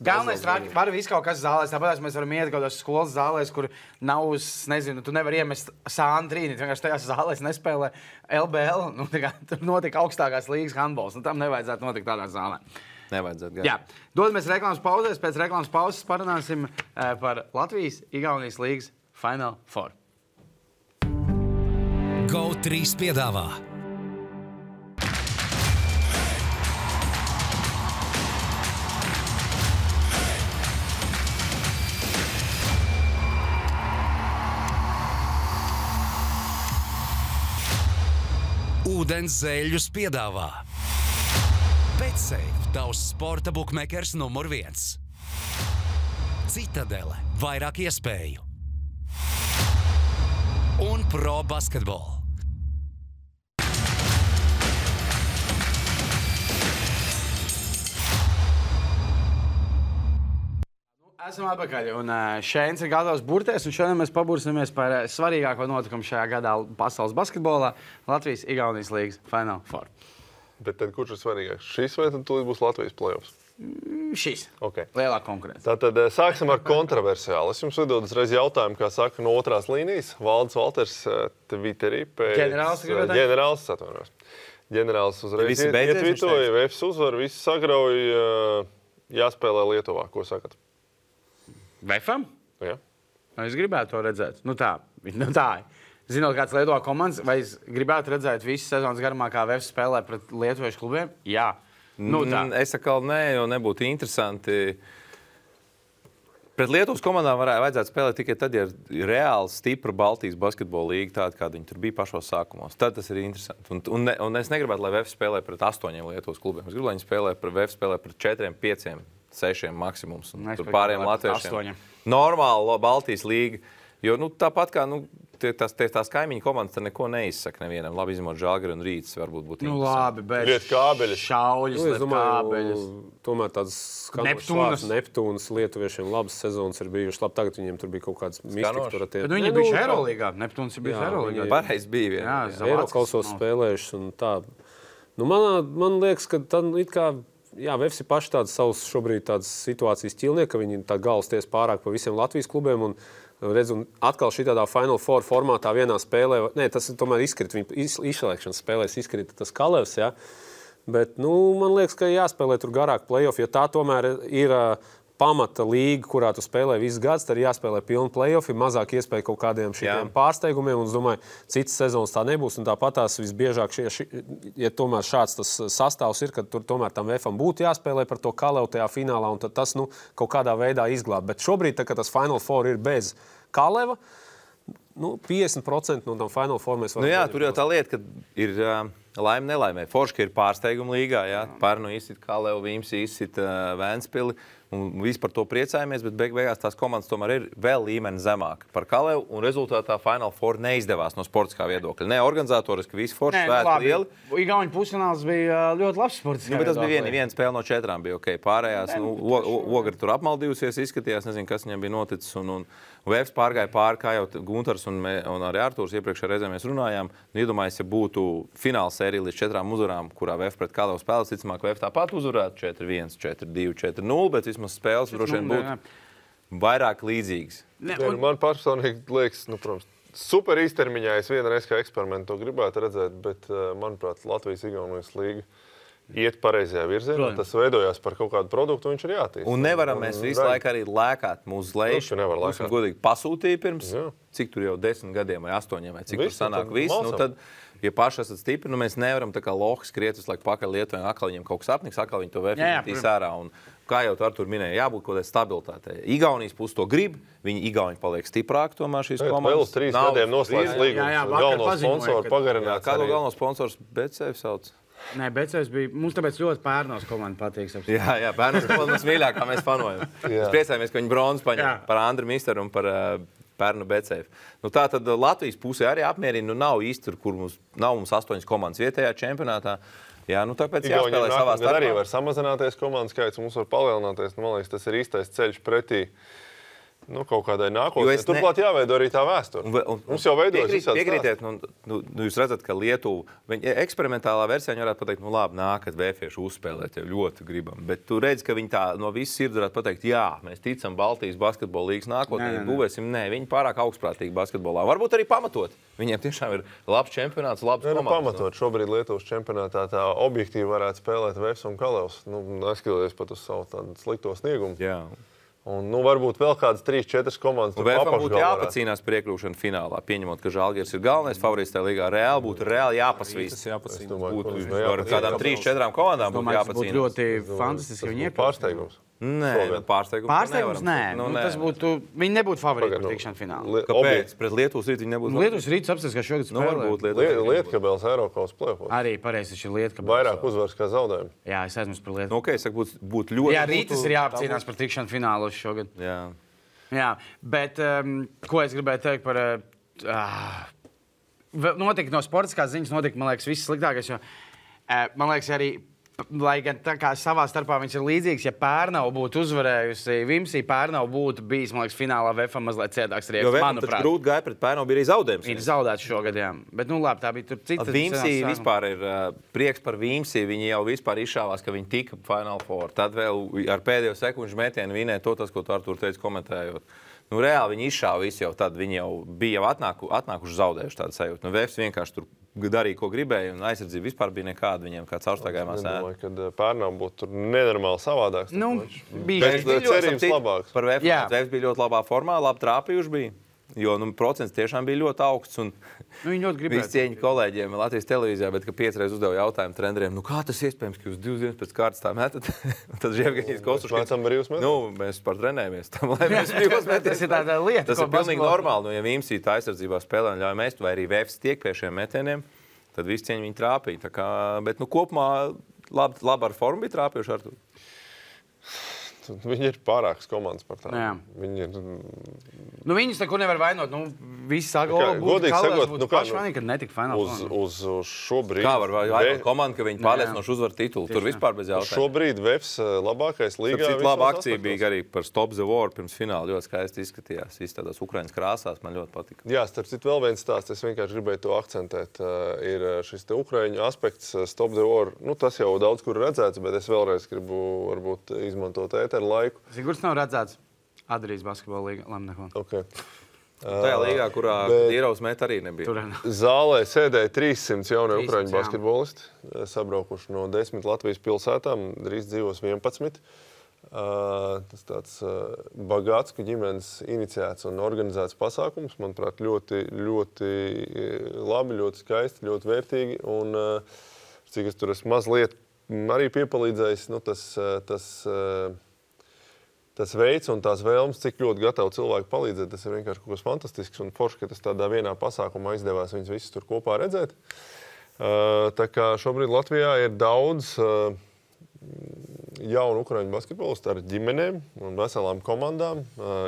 galvenais traki, var visu kaut kas zālēs, tāpēc mēs varam iet kaut kādās skolas zālēs, kur nav, nezinu, tu nevar iemest sānu trīnīt, vienkārši tajās zālēs nespēlē LBL, tur notika augstākās līgas handbols, tam nevajadzētu notikt tādā zālē. Nevajadzētu. Jā, dodamies reklāmas pauzēs, pēc reklāmas pauzes parunāsim par Latvijas-Igaunijas līgas Final Four. GO3 piedāvā Ūdens zeļus piedāvā BetSafe, tavs sporta bukmekers numur 1. Citadele, vairāk iespēju. Un Pro Basketball. Esam atpakaļ, un Šēns ir gatavs burties, un šodien mēs pabursimies par svarīgāko notikumu šajā gadā pasaules basketbolā – Latvijas-Igaunijas līgas Final Four. Bet tad kurš ir svarīgāks? Šis vai tad tūlīt būs Latvijas playoffs? Šis. Okay. Lielā konkurence. Tātad sāksim ar kontroversiālu. Es jums uzdod uzreiz jautājumu, kā saka, no otrās līnijas. Valdis Valters Twitterī pēc... Ģenerālis atvainojos. Ģenerālis uzreiz ietvitoja, VFS uzvar, visi sagrauja, jāspēlē Lietuvā. Ko sakat? Vefam? Jā. Es gribētu to redzēt. Nu tā. Zinot, kāds Lietuvā komandas, vai es gribētu redzēt visu sezonas garumā, kā Vefs spēlē pret lietuviešu klubiem? Jā. Nu tā. Es atkal nē, jo nebūtu interesanti. Pret Lietuvas komandām vajadzētu spēlēt tikai tad, ja ir reāli stipra Baltijas basketbola līga, tāda, kāda viņi tur bija pašos sākumos. Tad tas ir interesanti. Un es negribētu, lai Vefs spēlē pret 8 Lietuvas klubiem. Es gribu, lai viņi Vefs spēlē pret 4, 5, 6 maksimums. Tur pārējiem latviešiem. Normāla Baltijas līga. Jo tāpat kā tās kaimiņu komandas tad neko neizsaka nevienam. Labi izņemot Žalgiri un Rītas varbūt būtu interesanti. Labi, bet liet kābeļus. Šauļus, liet kābeļus. Tomēr tāds Neptūnas lietuviešiem labas sezonas ir bijušas. Labi, tagad viņiem tur bija kaut kāds mistika. Bet viņi bijuši Eirolīgā. Neptūnas ir bijuši Eirolīgā. Pareiz bija vien. Eirokasos spēlējuši un tā. Man liekas, ka tad it kā Vefs ir paši tādas savas šobrīd tādas situācijas ķilnieki, ka viņi tā galvas ties pārāk pa visiem Latvijas klubiem un redz, un atkal šitādā Final Four formātā vienā spēlē, tas tomēr izkrita, viņa izslēgšanas spēlēs izkrita tas Kalevs, ja? Bet, man liekas, ka jāspēlē tur garāk play-off, ja tā tomēr ir pamata līga, kurā tu spēlē visus gadus, tad ir jāspēlē pilni play-offi, mazāk iespēja kaut kādiem šitiem pārsteigumiem, un es domāju, citas sezonas tā nebūs, un tāpat tās visbiežāk, ja tomēr šāds tas sastāvs ir, kad tur tomēr tam Vefam būtu jāspēlē par to Kalevu tajā finālā, un tad tas, kaut kādā veidā izglāb. Bet šobrīd, tā, kad tas Final Four ir bez Kaleva, 50% no tam Final Four mēs varam... Tur jau tā lieta, ka ir laime nelaimē. Forši, ka ir pārsteiguma līgā, Pērnu izsit Kalevu, Vīms izsit Vēnspili, un visi par to priecājamies, bet beigās tās komandas tomēr ir vēl līmeni zemāk par Kalevu, un rezultātā Final Four neizdevās no sportiskā viedokļa. Ne organizatoriski, visi forši svēti lieli. Igauņu pusfināls bija ļoti labs sportiskā bet tas bija viena spēle no 4 bija ok. Pārējās, Ogri tur apmaldījusies, izskatījās, nezinu, kas viņam bija noticis, un Vefs pārgāja pāri, kā jau Guntars un arī Artūrs iepriekšējā reizē mēs runājām. Iedomājies, ja būtu fināla sērija līdz 4 uzvarām, kurā Vef pret Kalevu spēles, ticamāk, Vef tāpat uzvarētu 4-1, 4-2, 4-0, bet vismaz spēles droši vien būtu vairāk līdzīgas. Man personīgi liekas, protams, super īstermiņā es vienreiz kā eksperimentu to gribētu redzēt, bet, manuprāt, Latvijas-Igaunijas līga iet pareizajā virzienā, tas veidojās par kaut kādu produktu, viņš ir jātīst. Un nevaram mēs visu laiku arī lēkāt mūsu lejuši. Mums godīgi pasūtīja pirms, cik tur jau 10 gadiem vai 8, vai cik tur sanāk viss. Tad, ja paši esat stipri, mēs nevaram tā kā lohi skriet visu laiku pakaļ Lietuvai, atkal viņiem kaut kas apniks, atkal viņi to vērtīs ārā. Un, kā jau Artur minēja, jābūt kaut kādai stabilitātei. Igaunijas pusi to grib, viņi Igauni paliek stiprāk tomēr šīs komandas. Vēl 3 gadiem noslēdz līgumus. Galveno sponsoru pagarināt. Kādu galveno sponsors BetSafe sauc? Nē, BetSafe bija, mums tāpēc ļoti Pērnos komanda patīk. Jā, Pērnos komanda mums mīļākā, mēs fanojam. Mēs priecājamies, ka viņi bronzas paņem par Andru Misteru un par Pērnu BetSafe. Tā tad Latvijas pusē arī apmierina, nav īsti, kur nav mums 8 komandas vietējā čempionātā. Jā, tāpēc jāspēlē savā starpā. Arī var samazināties komandas skaits, mums var palielināties. Man liekas, tas ir īstais ceļš pretī kaut kādai nākotnē. Turklāt jāveido arī tā vēsture. Mums jau veidojas visādi piekrītiet, jūs redzat, ka Lietuva eksperimentālā versijā varētu pateikt, labi, nākat vēfieši uzspēlēt, jau ļoti gribam. Bet tu redzi, ka viņi tā no visas sirds varētu pateikt, jā, mēs ticam Baltijas basketbola līgas nākotnē, būvēsim. Nē, viņi pārāk augstprātīgi basketbolā. Varbūt arī pamatot. Viņiem tiešām ir labs čempionāts, labs komandas. Pamatot. Šobrīd Lietuvas čempionātā tā objektīvi varētu spēlēt Vēfs un Kalevs. Neskatoties pat uz savu tādu slikto sniegumu. Jā. Un, varbūt vēl kādas 3-4 komandas. Vēfam būtu jāpacīnās par iekļūšanu finālā. Pieņemot, ka Žalgiris ir galvenais favorīts tajā līgā, būtu reāli jāpasvīst. Kādām 3-4 komandām būtu jāpacīnās. Būtu ļoti fantastiski, ja viņi iekļūst. Pārsteigums. Nē, pārsteigums nē. Tas būtu, viņi nebūtu favorīti par tikšanu finālā. Kāpēc? Pret Lietuvas rītu viņi nebūtu? Lietuvas rīts apstāties, ka šogad spēlē. Lietkabels Eiropas play-offs. Arī pareizi, šis ir Lietkabels. Vairāk uzvaras kā zaudējumi. Jā, es aizmirsu par Lietuvu. Es saku, būtu ļoti... Jā, rītas ir jāapcīnās par tikšanu finālos šogad. Jā, bet ko es gribēju teikt par... Notika no sportiskās ziņas, man liekas, viss sliktākais, jo man liekas arī... Lai gan tā kā savā starpā viņš ir līdzīgs, ja Pērnava būtu uzvarējusi Vimsī, Pērnava būtu bijis, man liekas, finālā Vefam mazliet ciedāks rieks, manuprāt. Jo Vefam grūti gāja pret Pērnavu, bija arī zaudējums. Ir zaudēts šogad, jā. Bet, labi, tā bija tur cita. Vimsī vispār ir prieks par Vimsī, viņi jau vispār izšāvās, ka viņi tika Final Four. Tad vēl ar pēdējo sekundžu metienu vinēja to, ko tu Artur teici komentējot. Reāli viņi izšāva visu jau tad, viņi jau bija atnākuši zaudējuši tādu sajūtu. Vefs vienkārši tur darīja, ko gribēja, un aizsardzība vispār bija nekāda viņiem, kā caurstaigājumā sēna. Es domāju, ka Pērnava būtu tur nenormāli savādāks. Bija cerības labāks. Par Vefs bija ļoti labā formā, labi trāpījuši bija. Jo procents tiešām bija ļoti augsts. Viņi ļoti gribēja. Visi cieņi kolēģiem Latvijas televīzijā, bet 5 reizes uzdeva jautājumu treneriem, kā tas iespējams, ka jūs 2 dienas pēc kārtas tā metat? Tad Žievgaņīs Kostuškins. Mācām brīvus metus? Mēs par trenējamies tam, lai mēs brīvos meties. Tas ir tāda lieta. Tas ir pilnīgi normāli. Ja Vimsī tā aizsardzībā spēlē un ļauj mest, vai arī Vefs tiek pie šiem metieniem, tad visi cieņi viņi trāpīja. Bet kopumā labi ar formu bija trāpījuši ar to. Viņi ir pārākas komandas par tādām. Viņi ir... Viņus nekur nevar vainot. Visi saka, godīgi sakot, pašvainīgi, kad netika finālā. Uz šobrīd... Kā var vainot komandu, ka viņi pārliecinoši uzvar titulu? Tur vispār bez jautājumu. Šobrīd Vefs labākais līgā. Cita laba akcija bija arī par Stop the War pirms fināla. Ļoti skaisti izskatījās. Visi tādās Ukraiņas krāsās. Man ļoti patika. Jā, starp citu vēl viens stāsts. Es vienkārši gribēju to akcentēt. Ir šis te Ukraiņu aspekts Stop the War. Tas jau daudz kur redzēts, bet es vēlreiz gribu varbūt izmantot ēteru laiku. Sigurs nav redzēts Adrijas basketbola līga. Okay. Tajā līgā, kurā Dīrovs met arī nebija. Zālē sēdēja 300 jaunie ukraiņu basketbolisti, sabraukuši no 10 Latvijas pilsētām, drīz dzīvos 11. Tas tāds Bagātsku ģimenes iniciēts un organizēts pasākums, manuprāt, ļoti, ļoti labi, ļoti skaisti, ļoti vērtīgi. Un cik es tur esmu mazliet arī piepalīdzējis, tas veids un tās vēlmes, cik ļoti gatavi cilvēki palīdzēt, tas ir vienkārši kaut kas fantastisks un forši, ka tas tādā vienā pasākumā izdevās viņus visus tur kopā redzēt. Tā kā šobrīd Latvijā ir daudz jaunu ukraiņu basketbolistu ar ģimenēm un veselām komandām.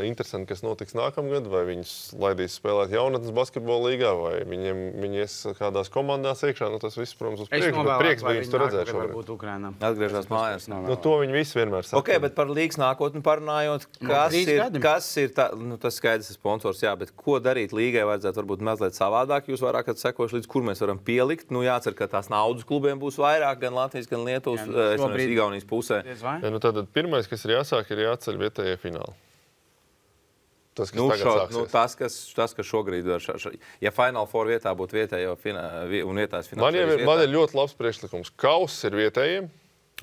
Interesanti, kas notiks nākamgad, vai viņus laidīs spēlēt jaunatnes basketbola līgā, vai viņi ies kādās komandās iekšā. Tas viss, protams, uz priekšu, bet prieks bija viņus tur redzēt šobrīd. Atgriežās mājās. To viņi visi vienmēr saka. Ok, bet par līgas nākotni parunājot, kas ir tā, tas skaidrs ir sponsors, jā, bet ko darīt līgai vajadzētu varbūt mazliet savādāk? Jūs vairāk sekojuši līdz, kur mēs varam pielikt. Jācer, ka tās naudas klubiem būs vairāk, gan Latvijas, gan Lietuvas, Igaunijas pusē. Tātad pirmais, kas ir jāsāk, ir jāceļ vietējie fināli. Tas, kas tas, kas šobrīd ir. Ja Final Four vietā būtu vietējo un vietājs fināls. Man ir ļoti labs priekšlikums. Kauss ir vietējiem.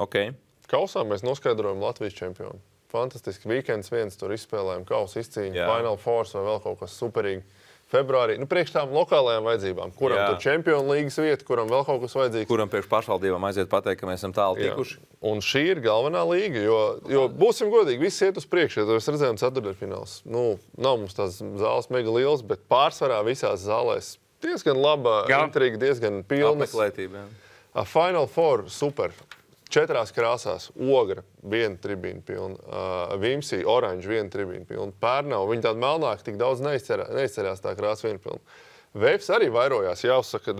Okay. Kausā mēs noskaidrojam Latvijas čempionu. Fantastiski. Weekends viens tur izspēlējam. Kauss izcīņa, Final Fours vai vēl kaut kas superīgi. Februārī, priekš tām lokālajām vajadzībām, kuram tur čempionu līgas vieta, kuram vēl kaut kas vajadzīgs. Kuram priekš pašvaldībām aiziet pateikt, ka mēs esam tālu tikuši. Un šī ir galvenā līga, jo būsim godīgi, viss iet uz priekšu, ja mēs redzējām ceturtdaļfināls. Nav mums tās zāles mega liels, bet pārsvarā visās zālēs diezgan laba intriga, diezgan pilnas. Apmeklētība, jā. Final Four, super. 4 krāsās, Ogra, 1 tribīna pilna, Vimsī, oranža, 1 tribīna pilna, Pērnava, viņi tādi melnāki tik daudz neizceļās tā krāsa 1 pilna. Vēfs arī vairojās, jāuzsaka,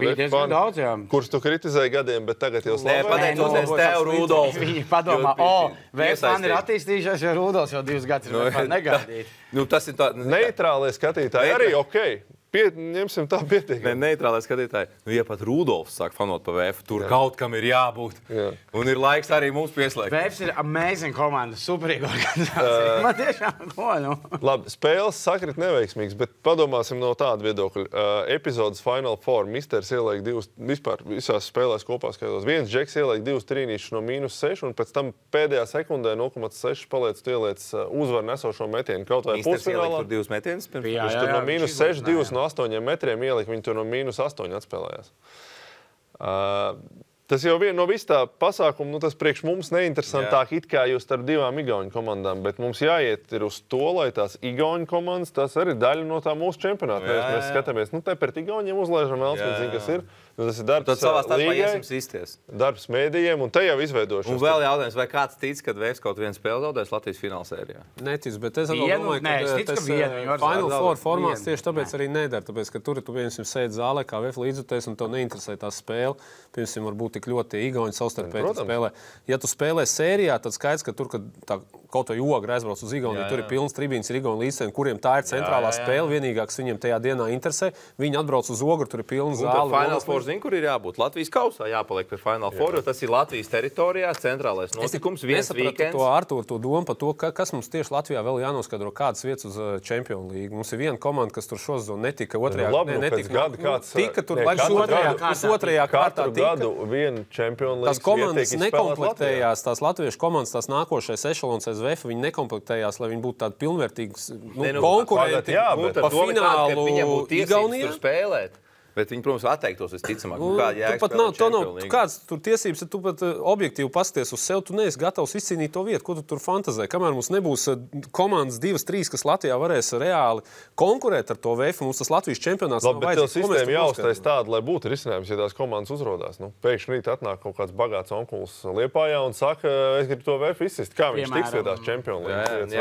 kurš tu kritizēji gadiem, bet tagad jau slavē. Pateicoties tev, Rudolf. Viņi padomā, Vēfs man ir attīstījušies, jo Rudolfs jau 2 gadus ir negaidīt. Tas ir tā... Neitrālie skatītāji arī okei. Ņemsim tā pietiekami. Neitrālai skatītāji. Ja pat Rudolfs sāk fanot pa Vēfu, tur kaut kam ir jābūt. Un ir laiks arī mums pieslēgt. Vēfs ir amazing komanda, superīga organizācija. Man tiešām ko, Labi, spēles sakrit neveiksmīgs, bet padomāsim no tāda viedokļa. Epizodes Final Four. Misters ieliek 2, vispār visās spēlēs kopā skatos. Viens džeks ieliek 2 trīnīšus no -6, un pēc tam pēdējā sekundē 0,6 paliec tu ieliec uzvaru nesošo metienu. Kaut vai pusfinālā. Misters ieliek tur 2 metienas? Viņš tur no -6, 2 no 8 metriem ielika, viņi tur no -8 atspēlējās. Tas jau no visu tā pasākumu, tas priekš mums neinteresantāk it kā jūs starp 2 igauņu komandām, bet mums jāiet ir uz to, lai tās igauņu komandas, tas arī daļa no tā mūsu čempionāta. Mēs skatāmies, te pret igauņiem uzlaižam vēl, zin, kas ir. Tas ir darbs līgai, darbs mēdījiem, un te jau izveidošos. Un vēl jautājums, vai kāds tic, kad Vēfs kaut vienu spēli zaudēs Latvijas finālsērijā? Netic, bet es domāju, ka tas Final Four formāts tieši tāpēc arī nedara. Tāpēc, ka tur tu piemēram sēdi zālē kā Vēfs līdzjutējs, un tev neinteresē tā spēle. Piemēram, varbūt tik ļoti igauņi savstarpēji spēlē. Ja tu spēlē sērijā, tad skaidrs, ka tur, kad tā kaut vai Ogra aizbrauc uz Igauniju, tur ir pilns tribīns, ir Igauni līdzcēni, kuriem tā ir centrālā spēle, vienīgā, kas viņiem tajā dienā interesē. Viņi atbrauc uz Ogru, tur ir pilns zāle. Final Four zin, kur ir jābūt? Latvijas kausā jāpaliek pie Final Four, jo tas ir Latvijas teritorijā, centrālais notikums, viens weekends. To Artūru, to domu par to, kas mums tieši Latvijā vēl jānoskaidro, kādas vietas uz Champions League. Mums ir viena komanda, kas tur šosezonu netika, otrajā tika tur otrajā kārtā. Gadu viena Champions League. Tās komandas nekomplektējās, tās latviešu komandas, tās nākošais ešalons SVF, viņi nekomplektējās, lai viņi būtu tādi pilnvērtīgi konkurenti pa finālu Igaunijā. Bet viņi, protams, atteiktos visticamāk. Kāds tur tiesības, ja tu pat objektīvi pasties uz sevi, tu neesi gatavs izcīnīt to vietu, ko tu tur fantazē. Kamēr mums nebūs komandas 2, 3, kas Latvijā varēs reāli konkurēt ar to VF, mums tas Latvijas čempionāts nav vajadzīgs. Bet tev sistēma jāuztais tāda, lai būtu risinājums, ja tās komandas uzrodās. Pēkšņi rīt atnāk kaut kāds bagāts onkulis Liepājā un saka, es gribu to VF izsist. Kā viņš tiks pie tās Champions League?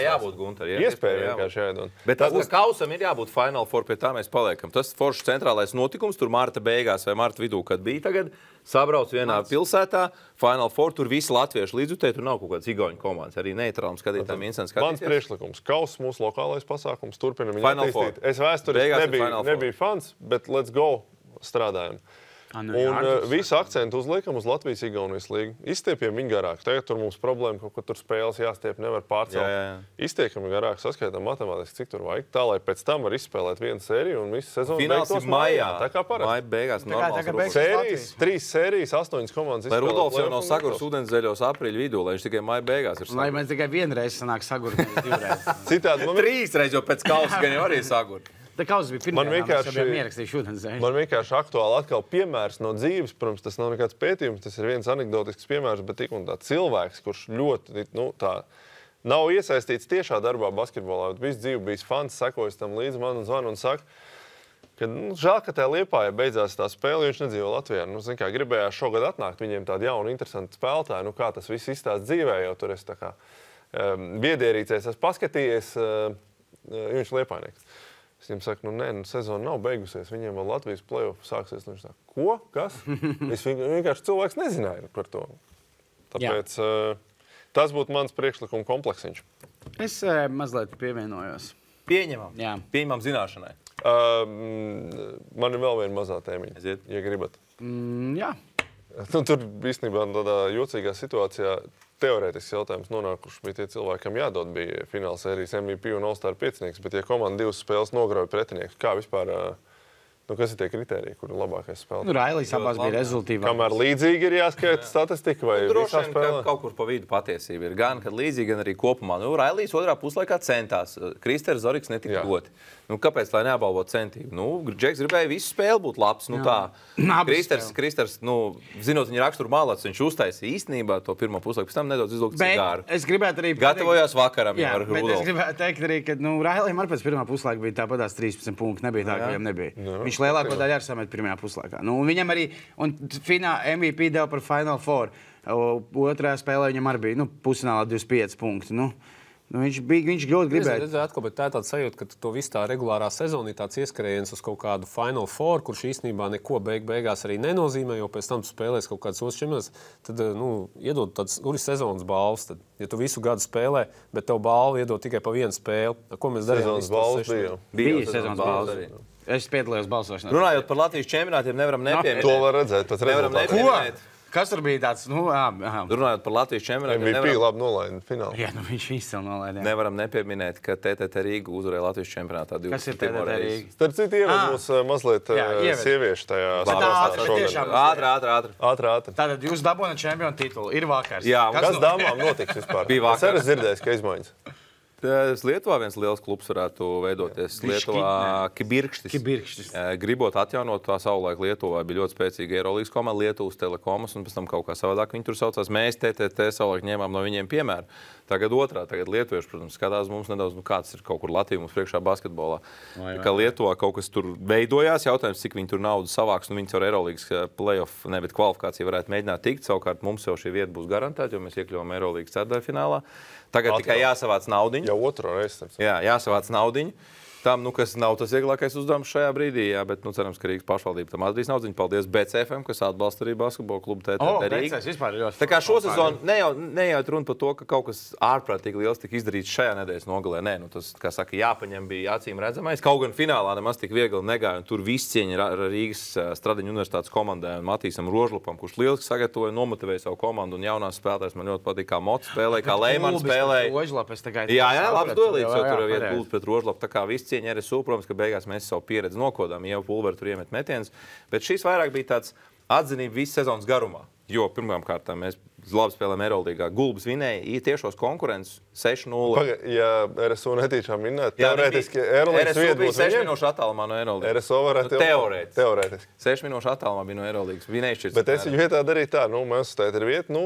Jābūt, Gunter. Iespēja vienkārši jāiedod. Bet kausam ir jābūt Final Four, pie tā mēs paliekam. Tas centrālais notikums, tur marta beigās vai marta vidū, kad bija tagad, sabrauc vienā pilsētā, Final Four, tur visi latvieši līdzjutēji, tur nav kaut kāds igauņu komandas, arī neitrālam skatītājiem interesanti skatīties. Mans priekšlikums, kaus mūsu lokālais pasākums, turpinam viņu attīstīt. Es vēsturiski nebiju fans, bet let's go, strādājam. Un visu akcentu uzliekam uz Latvijas-Igaunijas līgu. Izstiepjam viņu garāk. Tagad tur mums problēma, kaut ko tur spēles jāstiep, nevar pārcelt. Izstiekam garāk, saskaitām matemātiski, cik tur vajag. Tā, lai pēc tam var izspēlēt vienu sēriju un visu sezonu beigtos maijā. Tā kā parasti. Maija beigās normāls. Sērijas, 3 sērijas, 8 komandas izspēlēt. Lai Rudolfs jau nav sagurs ūdenszeļos aprīļa vidū, lai viņš tikai maija beigās ir sagurs. Lai mēs tikai vienreiz sanāk sagurt, nevis 2 reizes. Citādi 3 reizes, jo pēc kausa gan jau arī sagurt. Man vienkārši aktuāli atkal piemērs no dzīves. Protams, tas nav nekāds pētījums, tas ir viens anekdotisks piemērs, bet tik un tā cilvēks, kurš ļoti nav iesaistīts tiešā darbā basketbolā, bet visu dzīvi bijis fans, sekojas tam līdz man un zvanu un saka, ka žēl, ka tajā Liepājā beidzās tā spēle, jo viņš nedzīvo Latvijā. Gribējās šogad atnākt viņiem tādu jaunu, interesantu spēlētāju, kā tas viss izstāst dzīvē, jo tur es tā kā biedierīcēs esmu paskatījies, viņš Liepājnieks. Es viņam saku, sezona nav beigusies, viņiem vēl Latvijas play-off sāksies. Viņš saka, ko? Kas? Es vienkārši cilvēks nezināju par to. Tāpēc tas būtu mans priekšlikuma kompleksiņš. Es mazliet pievienojos. Pieņemam. Jā. Pieņemam zināšanai. Man ir vēl viena mazā tēmiņa, ja gribat. Jā. Tur īstenībā tādā jocīgā situācijā teorētisks jautājums nonākuši bija tie cilvēki, kam jādod bija fināla sērijas MVP un All-Star piecinieks, bet ja komanda 2 spēles nograuj pretinieks, kā vispār, kas ir tie kriteriji, kur ir labākais spēlētājs? Railijs abās bija rezultīvāk. Kamēr līdzīgi ir jāskaita statistika vai visā spēlē? Kaut kur pa vidu patiesība ir. Gan, kad līdzīgi, gan arī kopumā. Railijs otrā puslaikā centās. Kristers Zoriks netika doti. Kāpēc, lai neapbalvo centību? Džeks gribēja visu spēli būt labs. Kristers, zinot viņa raksturu malāts, viņš uztaisīja īstenībā to pirmo puslaiku, pēc tam nedaudz izlūgt cigāru. Es gribētu arī gatavojās vakaram ar Rudolfu. Bet es gribētu teikt arī, ka Railijam ar pēc pirmā puslaika bija tāpatās 13 punkti. Nebija tā, ka viņam nebija. Viņš lielāko daļu arī samet pirmajā puslaikā. Viņam arī, un MVP deva par Final Four. Otrajā spēlē viņam arī bija pusfinālā 25 punkti. Viņš ļoti gribēja. Bet tā ir tāda sajūta, ka to visu tā regulārā sezona ir tāds ieskrējiens uz kaut kādu Final Four, kurš īstenībā neko beigās arī nenozīmē, jo pēc tam tu spēlēs kaut kāds otrs čempionāts, tad iedod tādas sezonas balvas. Tad, ja tu visu gadu spēlē, bet tev balvu iedod tikai pa vienu spēli, ko mēs darījām? Sezonas balvas bija sezonas balvas. Es piedalījos balsošanā. Runājot par Latvijas čempionātiem, nevaram nepieminēt. To var redzēt pēc rezultātiem. Kas tur bija tāds? Runājot par Latvijas čempionātiem, MVP labi nolaida finālā. Jā, viņš izcili nolaida. Nevaram nepieminēt, ka TTT Rīga uzvarēja Latvijas čempionātā. Kas ir TTT Rīga? Starp citu, ieved mūs mazliet sieviešu tajā Ātri. Tātad jūs dabūjāt čempionu titulu. Ir vakars. Jā, kas dāmām notiks vispār? Bija vakar. Es arī dzirdēju, ka izmaiņas. Lietuvā viens liels klubs varētu veidoties. Lietuvā Kibirkštis. Gribot atjaunot tā savulaik Lietuvā, bija ļoti spēcīga Eirolīgas komanda, Lietuvas Telekomas, un pēc tam kaut kā savādāk viņi tur saucās. Mēs TTT savulaik ņēmām no viņiem piemēru. Tagad lietuvieši, protams, skatās mums nedaudz, kāds ir kaut kur Latvija mums priekšā basketbolā. Kā Lietuvā kaut kas tur veidojās, jautājums, cik viņi tur naudu savāks, viņi caur Eirolīgas playoff, bet kvalifikāciju varētu mēģināt tikt. Savukārt mums jau šī vieta būs garantēta, jo mēs iekļuvām Eirolīgas ceturtdaļfinālā. Tagad tikai jāsavāc naudiņu. Jau otro reizi. Jā, jāsavāc naudiņu. Tam, kas nav tas vieglākais uzdevums šajā brīdī, jā, bet cerams, ka Rīgas pašvaldība tam atradīs naudiņu. Paldies BCFM, kas atbalsta arī basketbola klubu TTT Rīga. Tā kā šo sezonu nejūt runa par to, ka kaut kas ārprātīgi liels tika izdarīts šajā nedēļas nogalē. Nē, tas, kā saka, jāpaņem bija acīm redzamais. Kaut gan finālā nemaz tik viegli negāja, un tur viss cieņa Rīgas Stradiņu universitātes komandai un Matīsam Rožlupam, kurš lieliski sagatavoja, nomotivēja savu komandu un jaunās spēlētājs man ļoti patīk, kā Mots spēlēja, kā Leimans spēlēja. Jā, labs duelīts, jo tur ir gults pret Rožlapu, tā kā viss cieņa RSU, protams, ka beigās mēs savu pieredzi nokodām, jau Pulveri tur iemet metienus, bet šīs vairāk bija tāds atzinība visu sezonas garumā, jo pirmām kārtām mēs labi spēlējām Eirolīgā. Gulbis vinēja tiešos konkurences 6-0. Ja RSU netīšām vinnēt, teorētiski Eirolīgas vieta būs 6 minūšu attālumā no Eirolīgas. RSU varētu teorētiski. 6 minūšu attālumā bija no Eirolīgas. Vinējušies. Bet es viņu vietā darīju tā, mēs uzstājot ir vieta,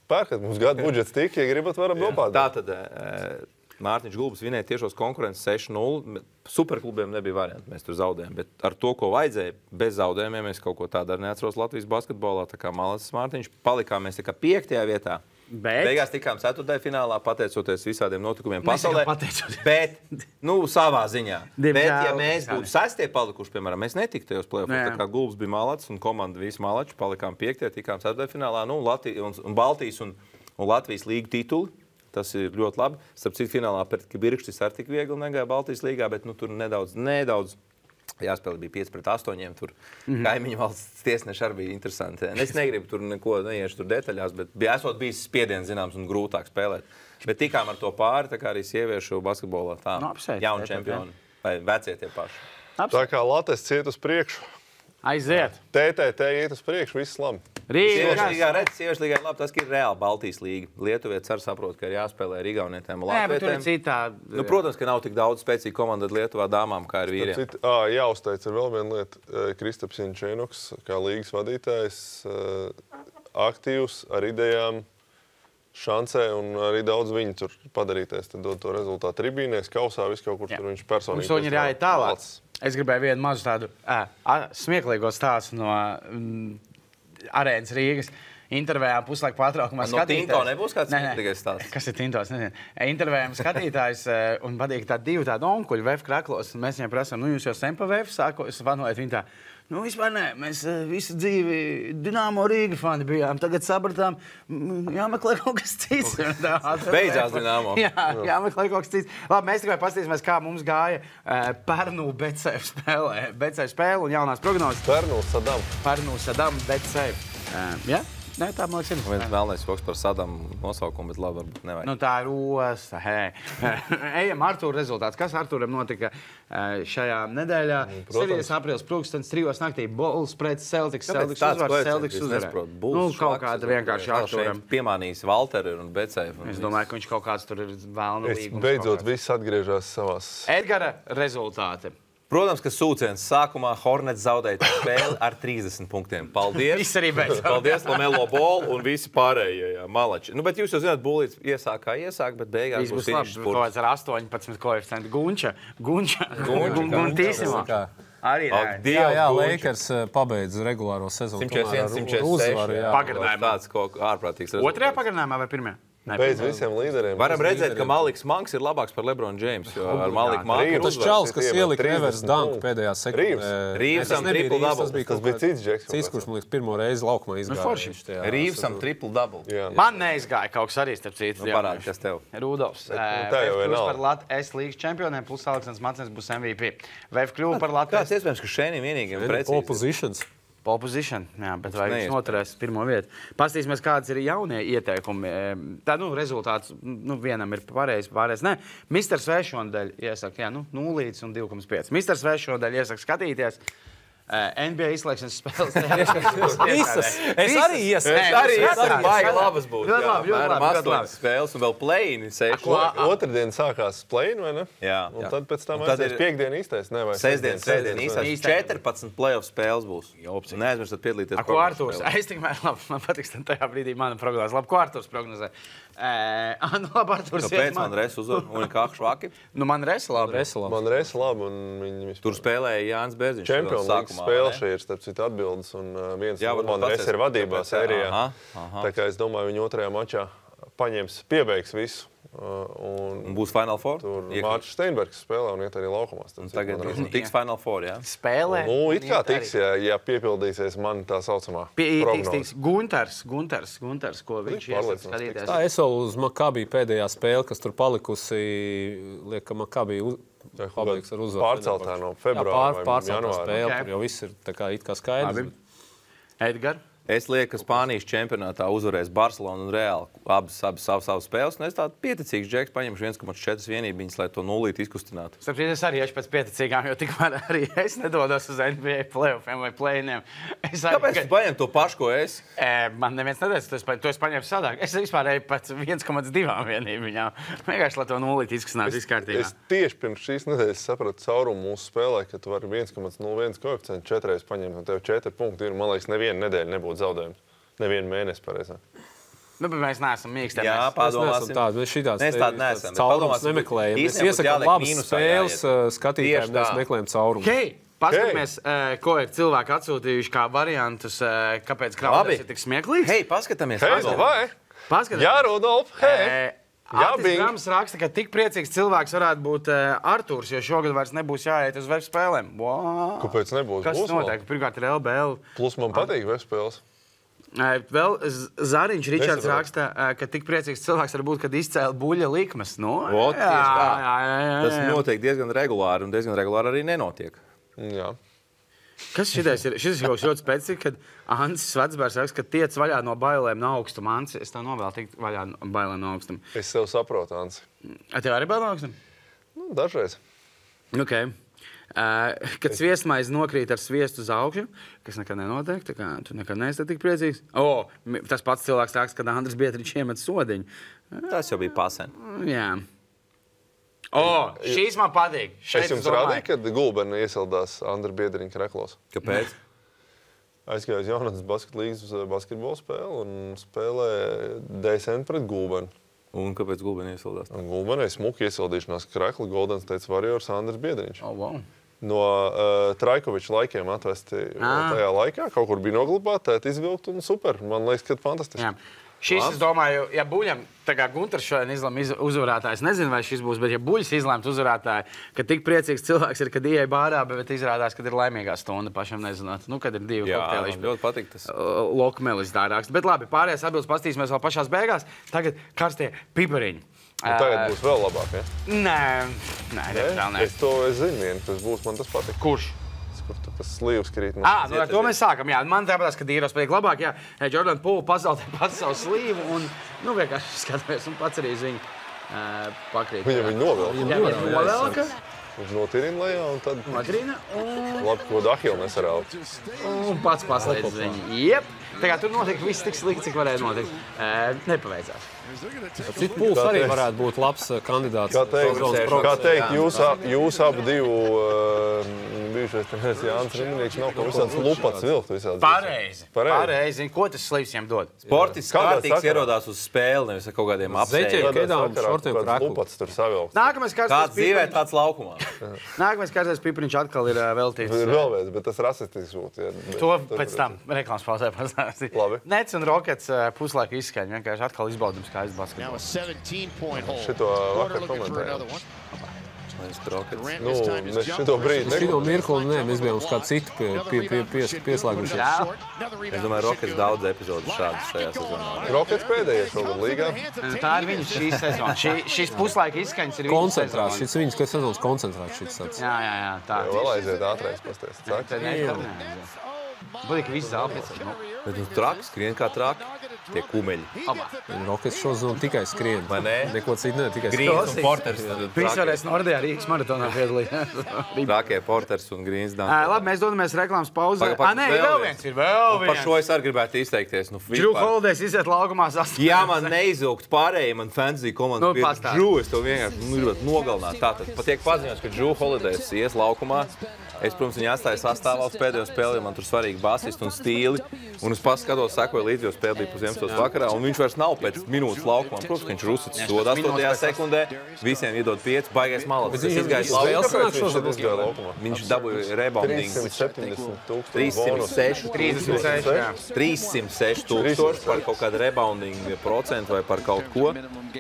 pērkat mums gadu budžets tik, ja gribat, varam nopādāt. Tātad Mārtiņš Gulbis vinēja tiešos konkurences 6-0. Superklubiem nebija varianti, mēs tur zaudējām. Bet ar to, ko vajadzēja, bez zaudējumiem, mēs kaut ko tādu arī neatceros Latvijas basketbolā. Tā kā malacis Mārtiņš, palikām mēs 5. vietā. Beigās tikām 4. finālā, pateicoties visādiem notikumiem pasaulē. Bet, savā ziņā. Bet, ja mēs būtu 6. palikuši, piemēram, mēs netiktu tajos play-offos. Tā kā Gulbis bija malacis un komanda visi malači, palikām 5. tikām 4. finālā. Un Baltijas un Latvijas līgu tituli. Tas ir ļoti labi. Starp citu, finālā pret Kibirkštis ar tik viegli negāja Baltijas līgā, bet tur nedaudz jāspēlē bija 5-8. Tur kaimiņu valsts tiesneši arī bija interesanti. Es negribu tur neko neiešu tur detaļās, bet esot bijis spiediens zināms un grūtāk spēlēt. Bet tikām ar to pāri, tā kā arī sieviešu basketbolā tā jauni čempioni vai vecie tie paši. Tā kā Latvijas ciet uz priekšu. Aiziet. TTT iet uz priekšu, viss labi. Sieviešu līgā labi, tas ir reāli Baltijas līga. Lietuvietis arī saprot, ka ir jāspēlē ar igaunietēm un latvietēm. Protams, ka nav tik daudz spēcīgu komandu Lietuvā dāmām, kā ir vīriem. Jāuzteic ir vēl viena lieta. Kristaps Jančēnoks, kā līgas vadītājs, aktīvs ar idejām, šancē un arī daudz viņi tur padarīties. Tad dod to rezultātu tribīnēs, kausā, viss kaut kur tur viņš personīgi. Mums ir jāiet tālāk. Es gribēju vienu mazu tādu smieklīgo stāstu no Arēnas Rīgas. Intervējām puslaiku pārtraukumā skatītājs. No Tinto nebūs kāds smieklīgais stāsts? Kas ir Tintos? Nezinu. Intervējām skatītājs un patīk divi tādi onkuļi VF kraklos. Mēs viņiem prasām, jūs jau sen pa VF sākos, vanojat viņu tā. Vispār nē, mēs visu dzīvi Dinamo Rīga fani bijām. Tagad sapratām, jāmeklē kaut kas cits. Beidzās Dinamo. Jāmeklē kaut kas cits. Labi, mēs tikai paskatīsimies, kā mums gāja Pērnu BCF spēlē. BCF spēle un jaunās prognozes. Pērnu Sadam BCF. Jā? Nē, tā man liekas ir. Viens vēlnais joks par Sadamu nosaukumu, bet labi, varbūt nevajag. Tā ir osta, Ejam Artūra rezultāts. Kas Artūram notika šajā nedēļā? 7. aprīlis pulkstens 3. naktī. Bulls pret Celtics. Celtics uzvarēja. Kaut kāda vienkārši Artūram. Piemānījis Valteri un BCF. Es domāju, ka viņš kaut kāds tur ir vēlna līgums. Beidzot, viss atgriežās savās. Edgara rezultāti. Protams, ka sūciens sākumā Hornets zaudēja spēli ar 30 punktiem. Paldies! Viss arī beidzās. Paldies, Lamelo Ball un visi pārējie malači. Bet jūs jau zināt, Bulīts iesāk, bet beigās būs finišs. Kaut kāds ar 18 koeficientu Gunča. Guntīsimā. Arī jā, Lakers pabeidz regulāro sezonu. 146. Pagarinājumā. Tāds kaut ārprātīgs rezultāts. Otrajā pagarinājumā vai pirmajā? Bez visiem līderiem. Varam redzēt, ka Maliks Manks ir labāks par LeBron James, jo ar Maliku Manku tas čalis, kas ielika reverse dunk pēdējā sekundē. Rīvsam triple double. Tas bija cits džeks. Cits, kurš, man liekas, pirmo reizi laukumā izgāja. Rīvsam triple double. Man neizgāja kaut kas arī, starp citu. Parādi, kas tev. Rudolfs. Plus par S līgas čempioniem, plus Aleksandrs Macens būs MVP. VF kļuva par Latvijas. Kāds iespējams, ka šeit vienīgiem precīzi? Oppositions. Pole position, jā, bet vai viņš noturēs pirmo vietu. Pastīsimies, kādas ir jaunie ieteikumi. Tā, rezultāts, vienam ir pareizi, pārējais nē. Mr. Svešondaļ iesaka, 0 un 2,5. Mr. Svešondaļ iesaka skatīties. NBA izslēgšanas spēles. Visas. Es arī iesaku. Baigi labas būs. Ļoti labi. 8 spēles un vēl play-ini 6. Otrdien sākās play-in, vai ne? Jā. Un tad pēc tam aizies piekdien īstais, ne? Vai sestdien īstais. 14 play-off spēles būs. Neaizmirstat piedalīties. Ko Arturs? Es tikmēr labi, man patiks tajā brīdī mana prognozē. Labi, ko Arturs prognozē? Labi, Arturs. Kāpēc man Res uzvar un kā švaki? Man Res labi. Man Res labi un viņi tur spēlēja Jānis Bērziņš. Champions League spēle šī ir, starp citu, atbildes, un viens man Res ir vadībā sērijā. Tā kā es domāju, viņi otrajā mačā piebeigs visu. Un būs Final Four? Tur Mārcis Steinbergs spēlē un iet arī laukumās. Tagad tiks Final Four, jā? Spēlē? It kā tiks, ja piepildīsies man tā saucamā prognoze. Tiks Gunters, ko viņš iesaka skatīties. Tā, es vēl uz Maccabi pēdējā spēle, kas tur palikusi, liek, ka Maccabi pabeigs ar uzvaru. Pārceltā no februāra vai janvāra. Spēle, tur jau viss ir tā kā it kā skaidrs. Edgar? Es lieku, ka Spānijas čempionātā uzvarēs Barcelona un Real abas savas spēles. Un es tādu pieticīgs džeks paņemšu 1,4 vienībiņas, lai to nulīti izkustinātu. Starp es arī esmu pēc pieticīgām, jo tikmēr arī es nedodos uz NBA playoffiem vai play-iniem. Kāpēc tu paņem to pašu, ko es? Man neviens neteica, to es paņēmu sadāk. Es vispār eju pēc 1,2 vienībiņām. Vienkārši, lai to nulīti izkustinātu izkārtībā. Es tieši pirms šīs nedēļas sapratu caurumu mūsu spēlē, ka tu vari 1,01 koeficientu 4 reizes paņemt, un tev 4 punkti ir, man liekas, nevienu nedēļu nebūtu zaudējums. Nevienu mēnesi pareizāk. Bet mēs neesam mīkstē. Jā, padomāsim. Mēs tādu neesam. Caurumus nemeklējam. Mēs iesakām labas spēles skatītājiem, mēs meklējam caurumus. Hei, paskatāmies, ko ir cilvēki atsūtījuši kā variantus, kāpēc Krauders ir tik smieklīgs. Hei, paskatāmies. Jā, Rudolf, hei. Artis Grams raksta, ka tik priecīgs cilvēks varētu būt Arturs, jo šogad vairs nebūs jāiet uz web spēlēm. Kāpēc nebūs? Kas notiek? Pirmkārt ir LBL. Plus man patīk web spēles. Vēl Zariņš Ričards raksta, ka tik priecīgs cilvēks var būt, kad izcēla buļļa likmes. Tas notiek diezgan regulāri, un diezgan regulāri arī nenotiek. Jā. Kas šitais ir? Šis ir kaut ļoti specifisks, kad Ansis Vecbērs raksta, ka tiec vaļā no bailēm no augstuma. Ansi, es tev novēlu tikt vaļā no bailēm no augstuma. Es tev saprotu, Ansi. Tev arī bail no augstuma? Dažreiz. Okay. Kad sviestmaize nokrīt ar sviestu uz augšu, kas nekad nenotiek, tā kā tu nekad neesi tik priecīgs. Tas pats cilvēks raksta, kad Andris Bietriņš iemet sodiņu. Tas jau bija pasen. Jā. Šīs man patīk. Es jums rādīju, kad Gulbeni iesildās Andra Biedriņa kreklos. Kāpēc? Aizgāju uz Jaunatnes basketlīgas basketbola spēli un spēlē DSN pret Gulbeni. Un kāpēc Gulbeni iesildās? Gulbenī smuki iesildīšanās krekli Golden State Warriors Andris Biedriņš. Wow. No Trajkoviča laikiem atvesti tajā laikā. Kaut kur bija noglabāti, tēt izvilkt un super. Man liekas, ka fantastiski. Jā. Šis, es domāju, ja Buļam, tā kā Gunters šodien izlēma uzvarētājs, nezinu, vai šis būs, bet ja Buļs izlēmt uzvarētāju, ka tik priecīgs cilvēks ir, kad ieeja bārā, bet izrādās, kad ir laimīgā stunda pašam nezināt. Kad ir divi kokteiliši. Jā, ļoti patīk tas. Lokmelis tā raksta. Bet labi, pārējās atbildes pastīsimies vēl pašās beigās. Tagad karstie pipariņi. Tagad būs vēl labāk, ja? Nē. Es zinu vienu, tas būs, man tas patīk. Kurš? Kur tas slīvs krīt. Ar to mēs sākam. Jā, man tāpēc, ka Dīros patīk labāk. Jā, Jordan Poole pazaudē pats savu slīvu un vienkārši skatāmies un pats arī uz viņu pakrīt. Viņu novelka. Viņš notirina lejā un tad... Notirina un... Labi, ko Dahila nesarāva. Un pats paslēdz viņu. Jep. Tā kā tur notiek viss tik slikti, cik varēja notikt. Nepaveicās. Cits Pools arī varētu būt labs kandidāts. Kā teikt, jūs abi divu Viņa bijušais treneris Jānis Rimnieks nav kaut visāds lupats vilkt visādi. Pareizi. Ko tas slīvs viņam dod? Sportists kārtīgs ierodās uz spēli, nevis ar kaut kādiem Zeķiem, apsēļiem. kedām, šortiem, kraklu. Lupats tur savilkt. Kāds dzīvē, tāds laukumā. Nākamais kārtais Pipriņš atkal ir veltīts. Ir vēl viens, bet tas rasistisks būtu. To pēc tam reklāmas pauzē pastāstīt. Labi. Nets un Rockets puslaika izskaņa. Vienkārši atkal izbaudums kā basketbolu. Šito vakar komentējām. Nu, mēs šito brīdi Šito mirkli, nē, mēs bijām uz kādu citu pieslēgušies. Es domāju, Rockets daudz epizodu šādas šajā sezonā. Rockets pēdējais šogad līgā. Tā ir viņa šīs sezona. Šīs puslaika izskaņas ir viņa Koncentrāts, šis viņas, kas sezonas koncentrāts šis tāds. Jā, tā. Vēl aiziet ātrais pasties. Būtīgi viss zāpēc. Bet nu traks, skrien kā traki. Tie kumeļi. Rockets šo zonu tikai skrien. Vai ne? Neko citu ne, tikai Grīns un Porters. Viņš varēs Nordijā Rīgas maratonā piedalījās. Trakie Porters un Grīns. Labi, mēs dodamies reklāmas pauzē. Nē, vēl viens. Par šo es arī gribētu izteikties. Drew Holidays iziet laukumā sastāvā. Jā, man neizilgt pārējiem, man fantasy komanda bija Drew, es to vienkārši gribētu nogalināt. Tātad patiek paziņots, ka Drew Holidays ies laukumā. Es, protams, viņu atstāju sastāvā uz pēdējo spēli, jo man tur svarīgi basisti un stīli. Un es paskatos, sekoju līdzi, jo spēle bija 11. vakarā, un viņš vairs nav pēc minūtes laukumā. Protams, ka viņš ir uzsits soda 8. sekundē, visiem iedod 5, baigais malas. Es izgāju laukumā. Viņš dabūja reboundingu. 306 tūkstoši par kaut kādu reboundingu procentu vai par kaut ko.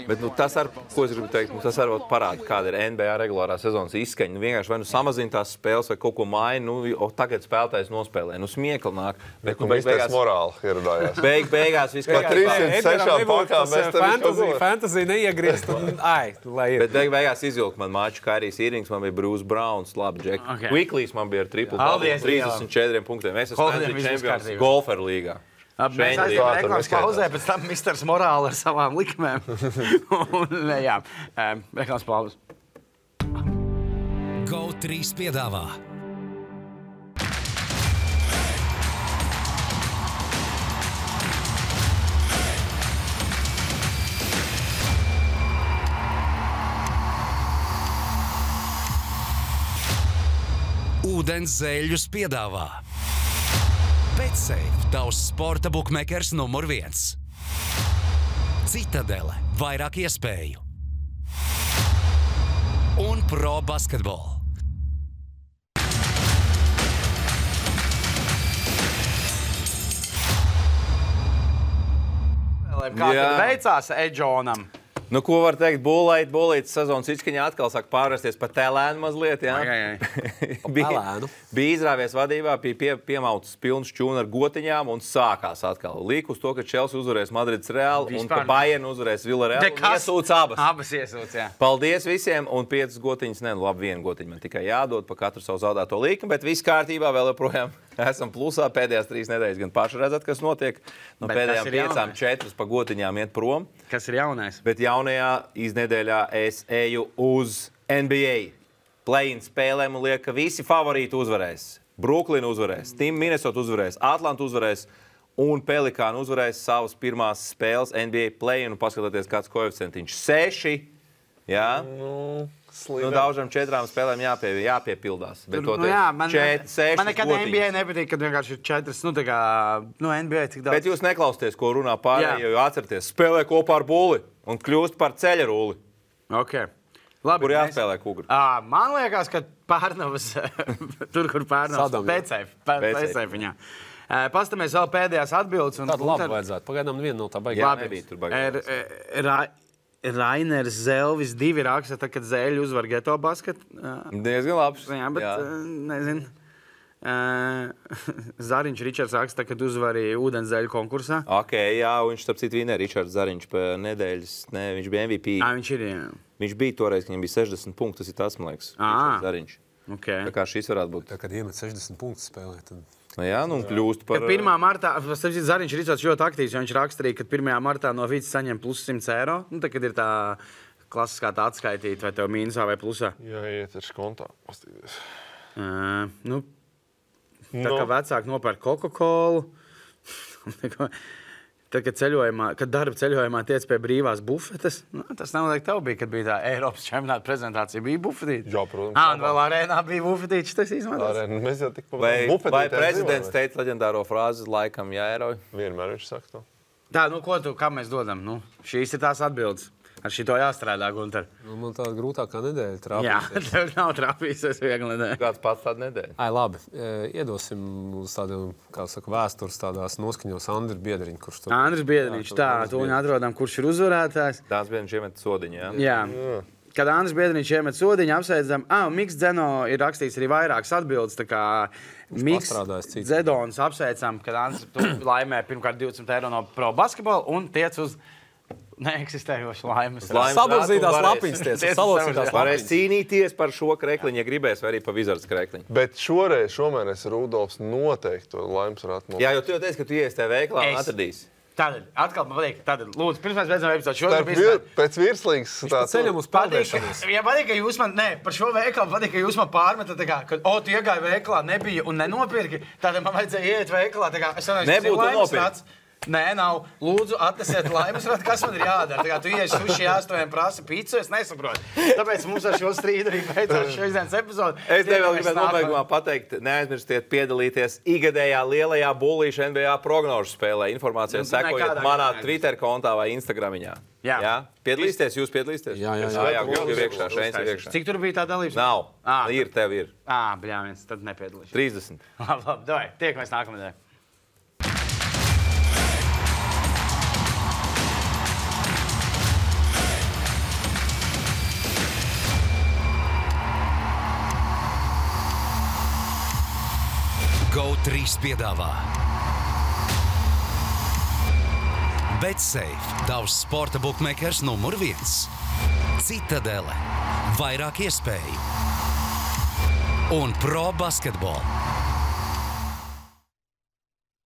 Bet tas ar, ko es gribu teikt, tas arī parāda, kāda ir NBA regulārā sezonas izskaņa. Vienkārši vai nu samazina tās spēles vai kaut ko maina, tagad spēlētājs nospēlē. Spēkli nāk. Bet beigās morāli ieradājās. Beigās viss kā 306 pakām mēs tev fantasy neiegriezt un lai ir. Bet beigās izvilka man maču Kairijs Irvings, man bija Bruce Browns, labi, Jack. Quickleys man bija ar triple 34 punktiem. Es esmu fantasy čempions golferu līgā. Mēs aizjām reklāmas pauzē, pēc tam Misters Morāli ar savām likmēm. Jā, reklāmas pauzē. GO3 piedāvā ūdens zeļus piedāvā BetSafe, tavs sporta bukmekers numur 1. Citadele, vairāk iespēju. Un Pro Basketball. Kā tad veicās Edžonam? Nu, ko var teikt? Bolītas sezonas izskaņā atkal sāk pārvērsties par tēlēnu mazliet. Bija izrāvies vadībā, bija piemauts pilns čūna ar gotiņām un sākās atkal. Līk uz to, ka Chelsea uzvarēs Madrids Real un ka Bayern uzvarēs Villarreal un iesūc abas. Abas iesūc, jā. Paldies visiem un 5 gotiņas, labi, 1 gotiņu man tikai jādod pa katru savu zaudēto līkumu, bet viss kārtībā vēl joprojām. Esam plusā pēdējās 3 nedēļas, gan paši redzat, kas notiek. No pēdējām 5, 4 pa gotiņām iet prom. Kas ir jaunais? Bet jaunajā iznedēļā es eju uz NBA. Play-in spēlēm un liek, ka visi favorīti uzvarēs. Brooklyn uzvarēs, Team Minnesota uzvarēs, Atlanta uzvarēs un Pelikāni uzvarēs savas pirmās spēles NBA play-in. Un paskatieties, kāds koeficientiņš 6. Jā? Daužam 4 spēlēm jāpiepildās. Bet man nekad NBA nepatīk, kad vienkārši ir 4. NBA cik daudz. Bet jūs neklausieties, ko runā pārējie, jo atcerieties, spēlē kopā ar Bulli un kļūst par ceļa rulli. Okay. Labi, kur jāspēlē kugri? Man liekas, ka Pērnavas, tur, kur Pērnavas, BCF viņā. Pastamies vēl pēdējās atbildes. Tādu labi vajadzētu. Pagaidām viena no tā baigā. Nebija tur baigā. Rainers Zelvis 2 raksta, kad Zēļi uzvar Geto basket. Diezgan labs. Jā, bet nezinu. Zariņš Ričards raksta, kad uzvarīja ūdens zeļu konkursā. Jā, viņš starp citu vinēja Ričards Zariņš pa nedēļas. Viņš bija MVP. Viņš ir, jā. Viņš bija toreiz, ka viņam bija 60 punkti. Tas ir tas, man liekas, Ričards Zariņš. Okay. Tā kā šis varētu būt. Tā, kad iemet 60 punktus spēlē, tad... Jā, nu kļūst par... Kad 1. martā, Zariņš Ričards ļoti aktīvs, jo viņš raksturīja, kad 1. martā no Vītas saņem plus 100 eiro. Nu, tad, kad ir tā klasiskā tā atskaitīt, vai tev mīnusā vai plusā. Jā, iet ar kontā. Pastīties. Tā kā vecāki nopērk Coca-Colu. Tad, kad darba ceļojumā tiec pie brīvās bufetes, tas noteikti tev bija, kad bija tā Eiropas čempionāta prezentācija, bija bufetīte. Jā, protams. Un vēl arēnā bija bufetīte, tas izmantos. Mēs jau tik vai prezidents teica leģendāro frāzi laikam jāierauj? Vienmēr viņš saka to. Tā, kā mēs dodam? Šīs ir tās atbildes. Ar šito jāstrādā, Gunter. Man tāda grūtākā nedēļa trāpīsies. Jā, tev nav trāpīsies viegli nedēļa. Kāds pats tāda nedēļa? Labi. Iedosim uz tādiem, kā saka, vēstures tādās noskaņos Andris Biedriņš, kurš tur... Andris Biedriņš, tu viņu atrodam, kurš ir uzvarētājs. Dāns Biedriņš iemet sodiņu, jā? Jā. Kad Andris Biedriņš iemet sodiņu, apsveicam, Miks Dzeno ir rakstījis arī vairākas atbildes, tā kā Miks Dzedons apsveicam, kad Andris laimē pirmkārt 20 eiro no Pro Basketball un tiec uz neeksistējošu laimes. Sabalzītās lapiņas Varēs cīnīties par šo krekliņu, ja gribēs, vai arī pa Wizards krekliņu. Bet šomēnes Rudolfs noteikti to laimes varētu nopirkt. Jā, jo tu jau teici, ka tu ies tajā veiklā un atradīsi. Tātad, atkal man patīk, lūdzu, pirms mēs beidzam epizodu. Pēc virslīgas ceļam uz pārdēšanos. Ja patīk, ka jūs man, par šo veikalu patīk, ka jūs man pārmetat, ka, tu iegāji veikalā, nebija un nenopirki, tātad man vajadzēja iet veikalā, nebūtu nopirkt. Nē, nav. Lūdzu, atnesiet laimes, kas man ir jādara. Tā kā tu iesi suši 8 prasa pīcu, es nesaprotu. Tāpēc mums ar šo strīdu arī beidzās šīs dienas epizode. Es tev vēl gribētu nobeigumā pateikt, neaizmirstiet piedalīties ikgadējā lielajā bullīša NBA prognožu spēlē. Informācijā sekojiet manā Twitter kontā vai Instagramiņā. Jā? Piedalīsieties, jūs piedalīsieties? Jā. Cik tur bija tā dalības? Nav. Tev ir. Bļāviens, tad nepiedalīšu. 30. Labi, tiekamies nākamajā. GO3 piedāvā BetSafe, tavs sporta bookmakers numur 1. Citadele, vairāk iespēju. Un Pro Basketball.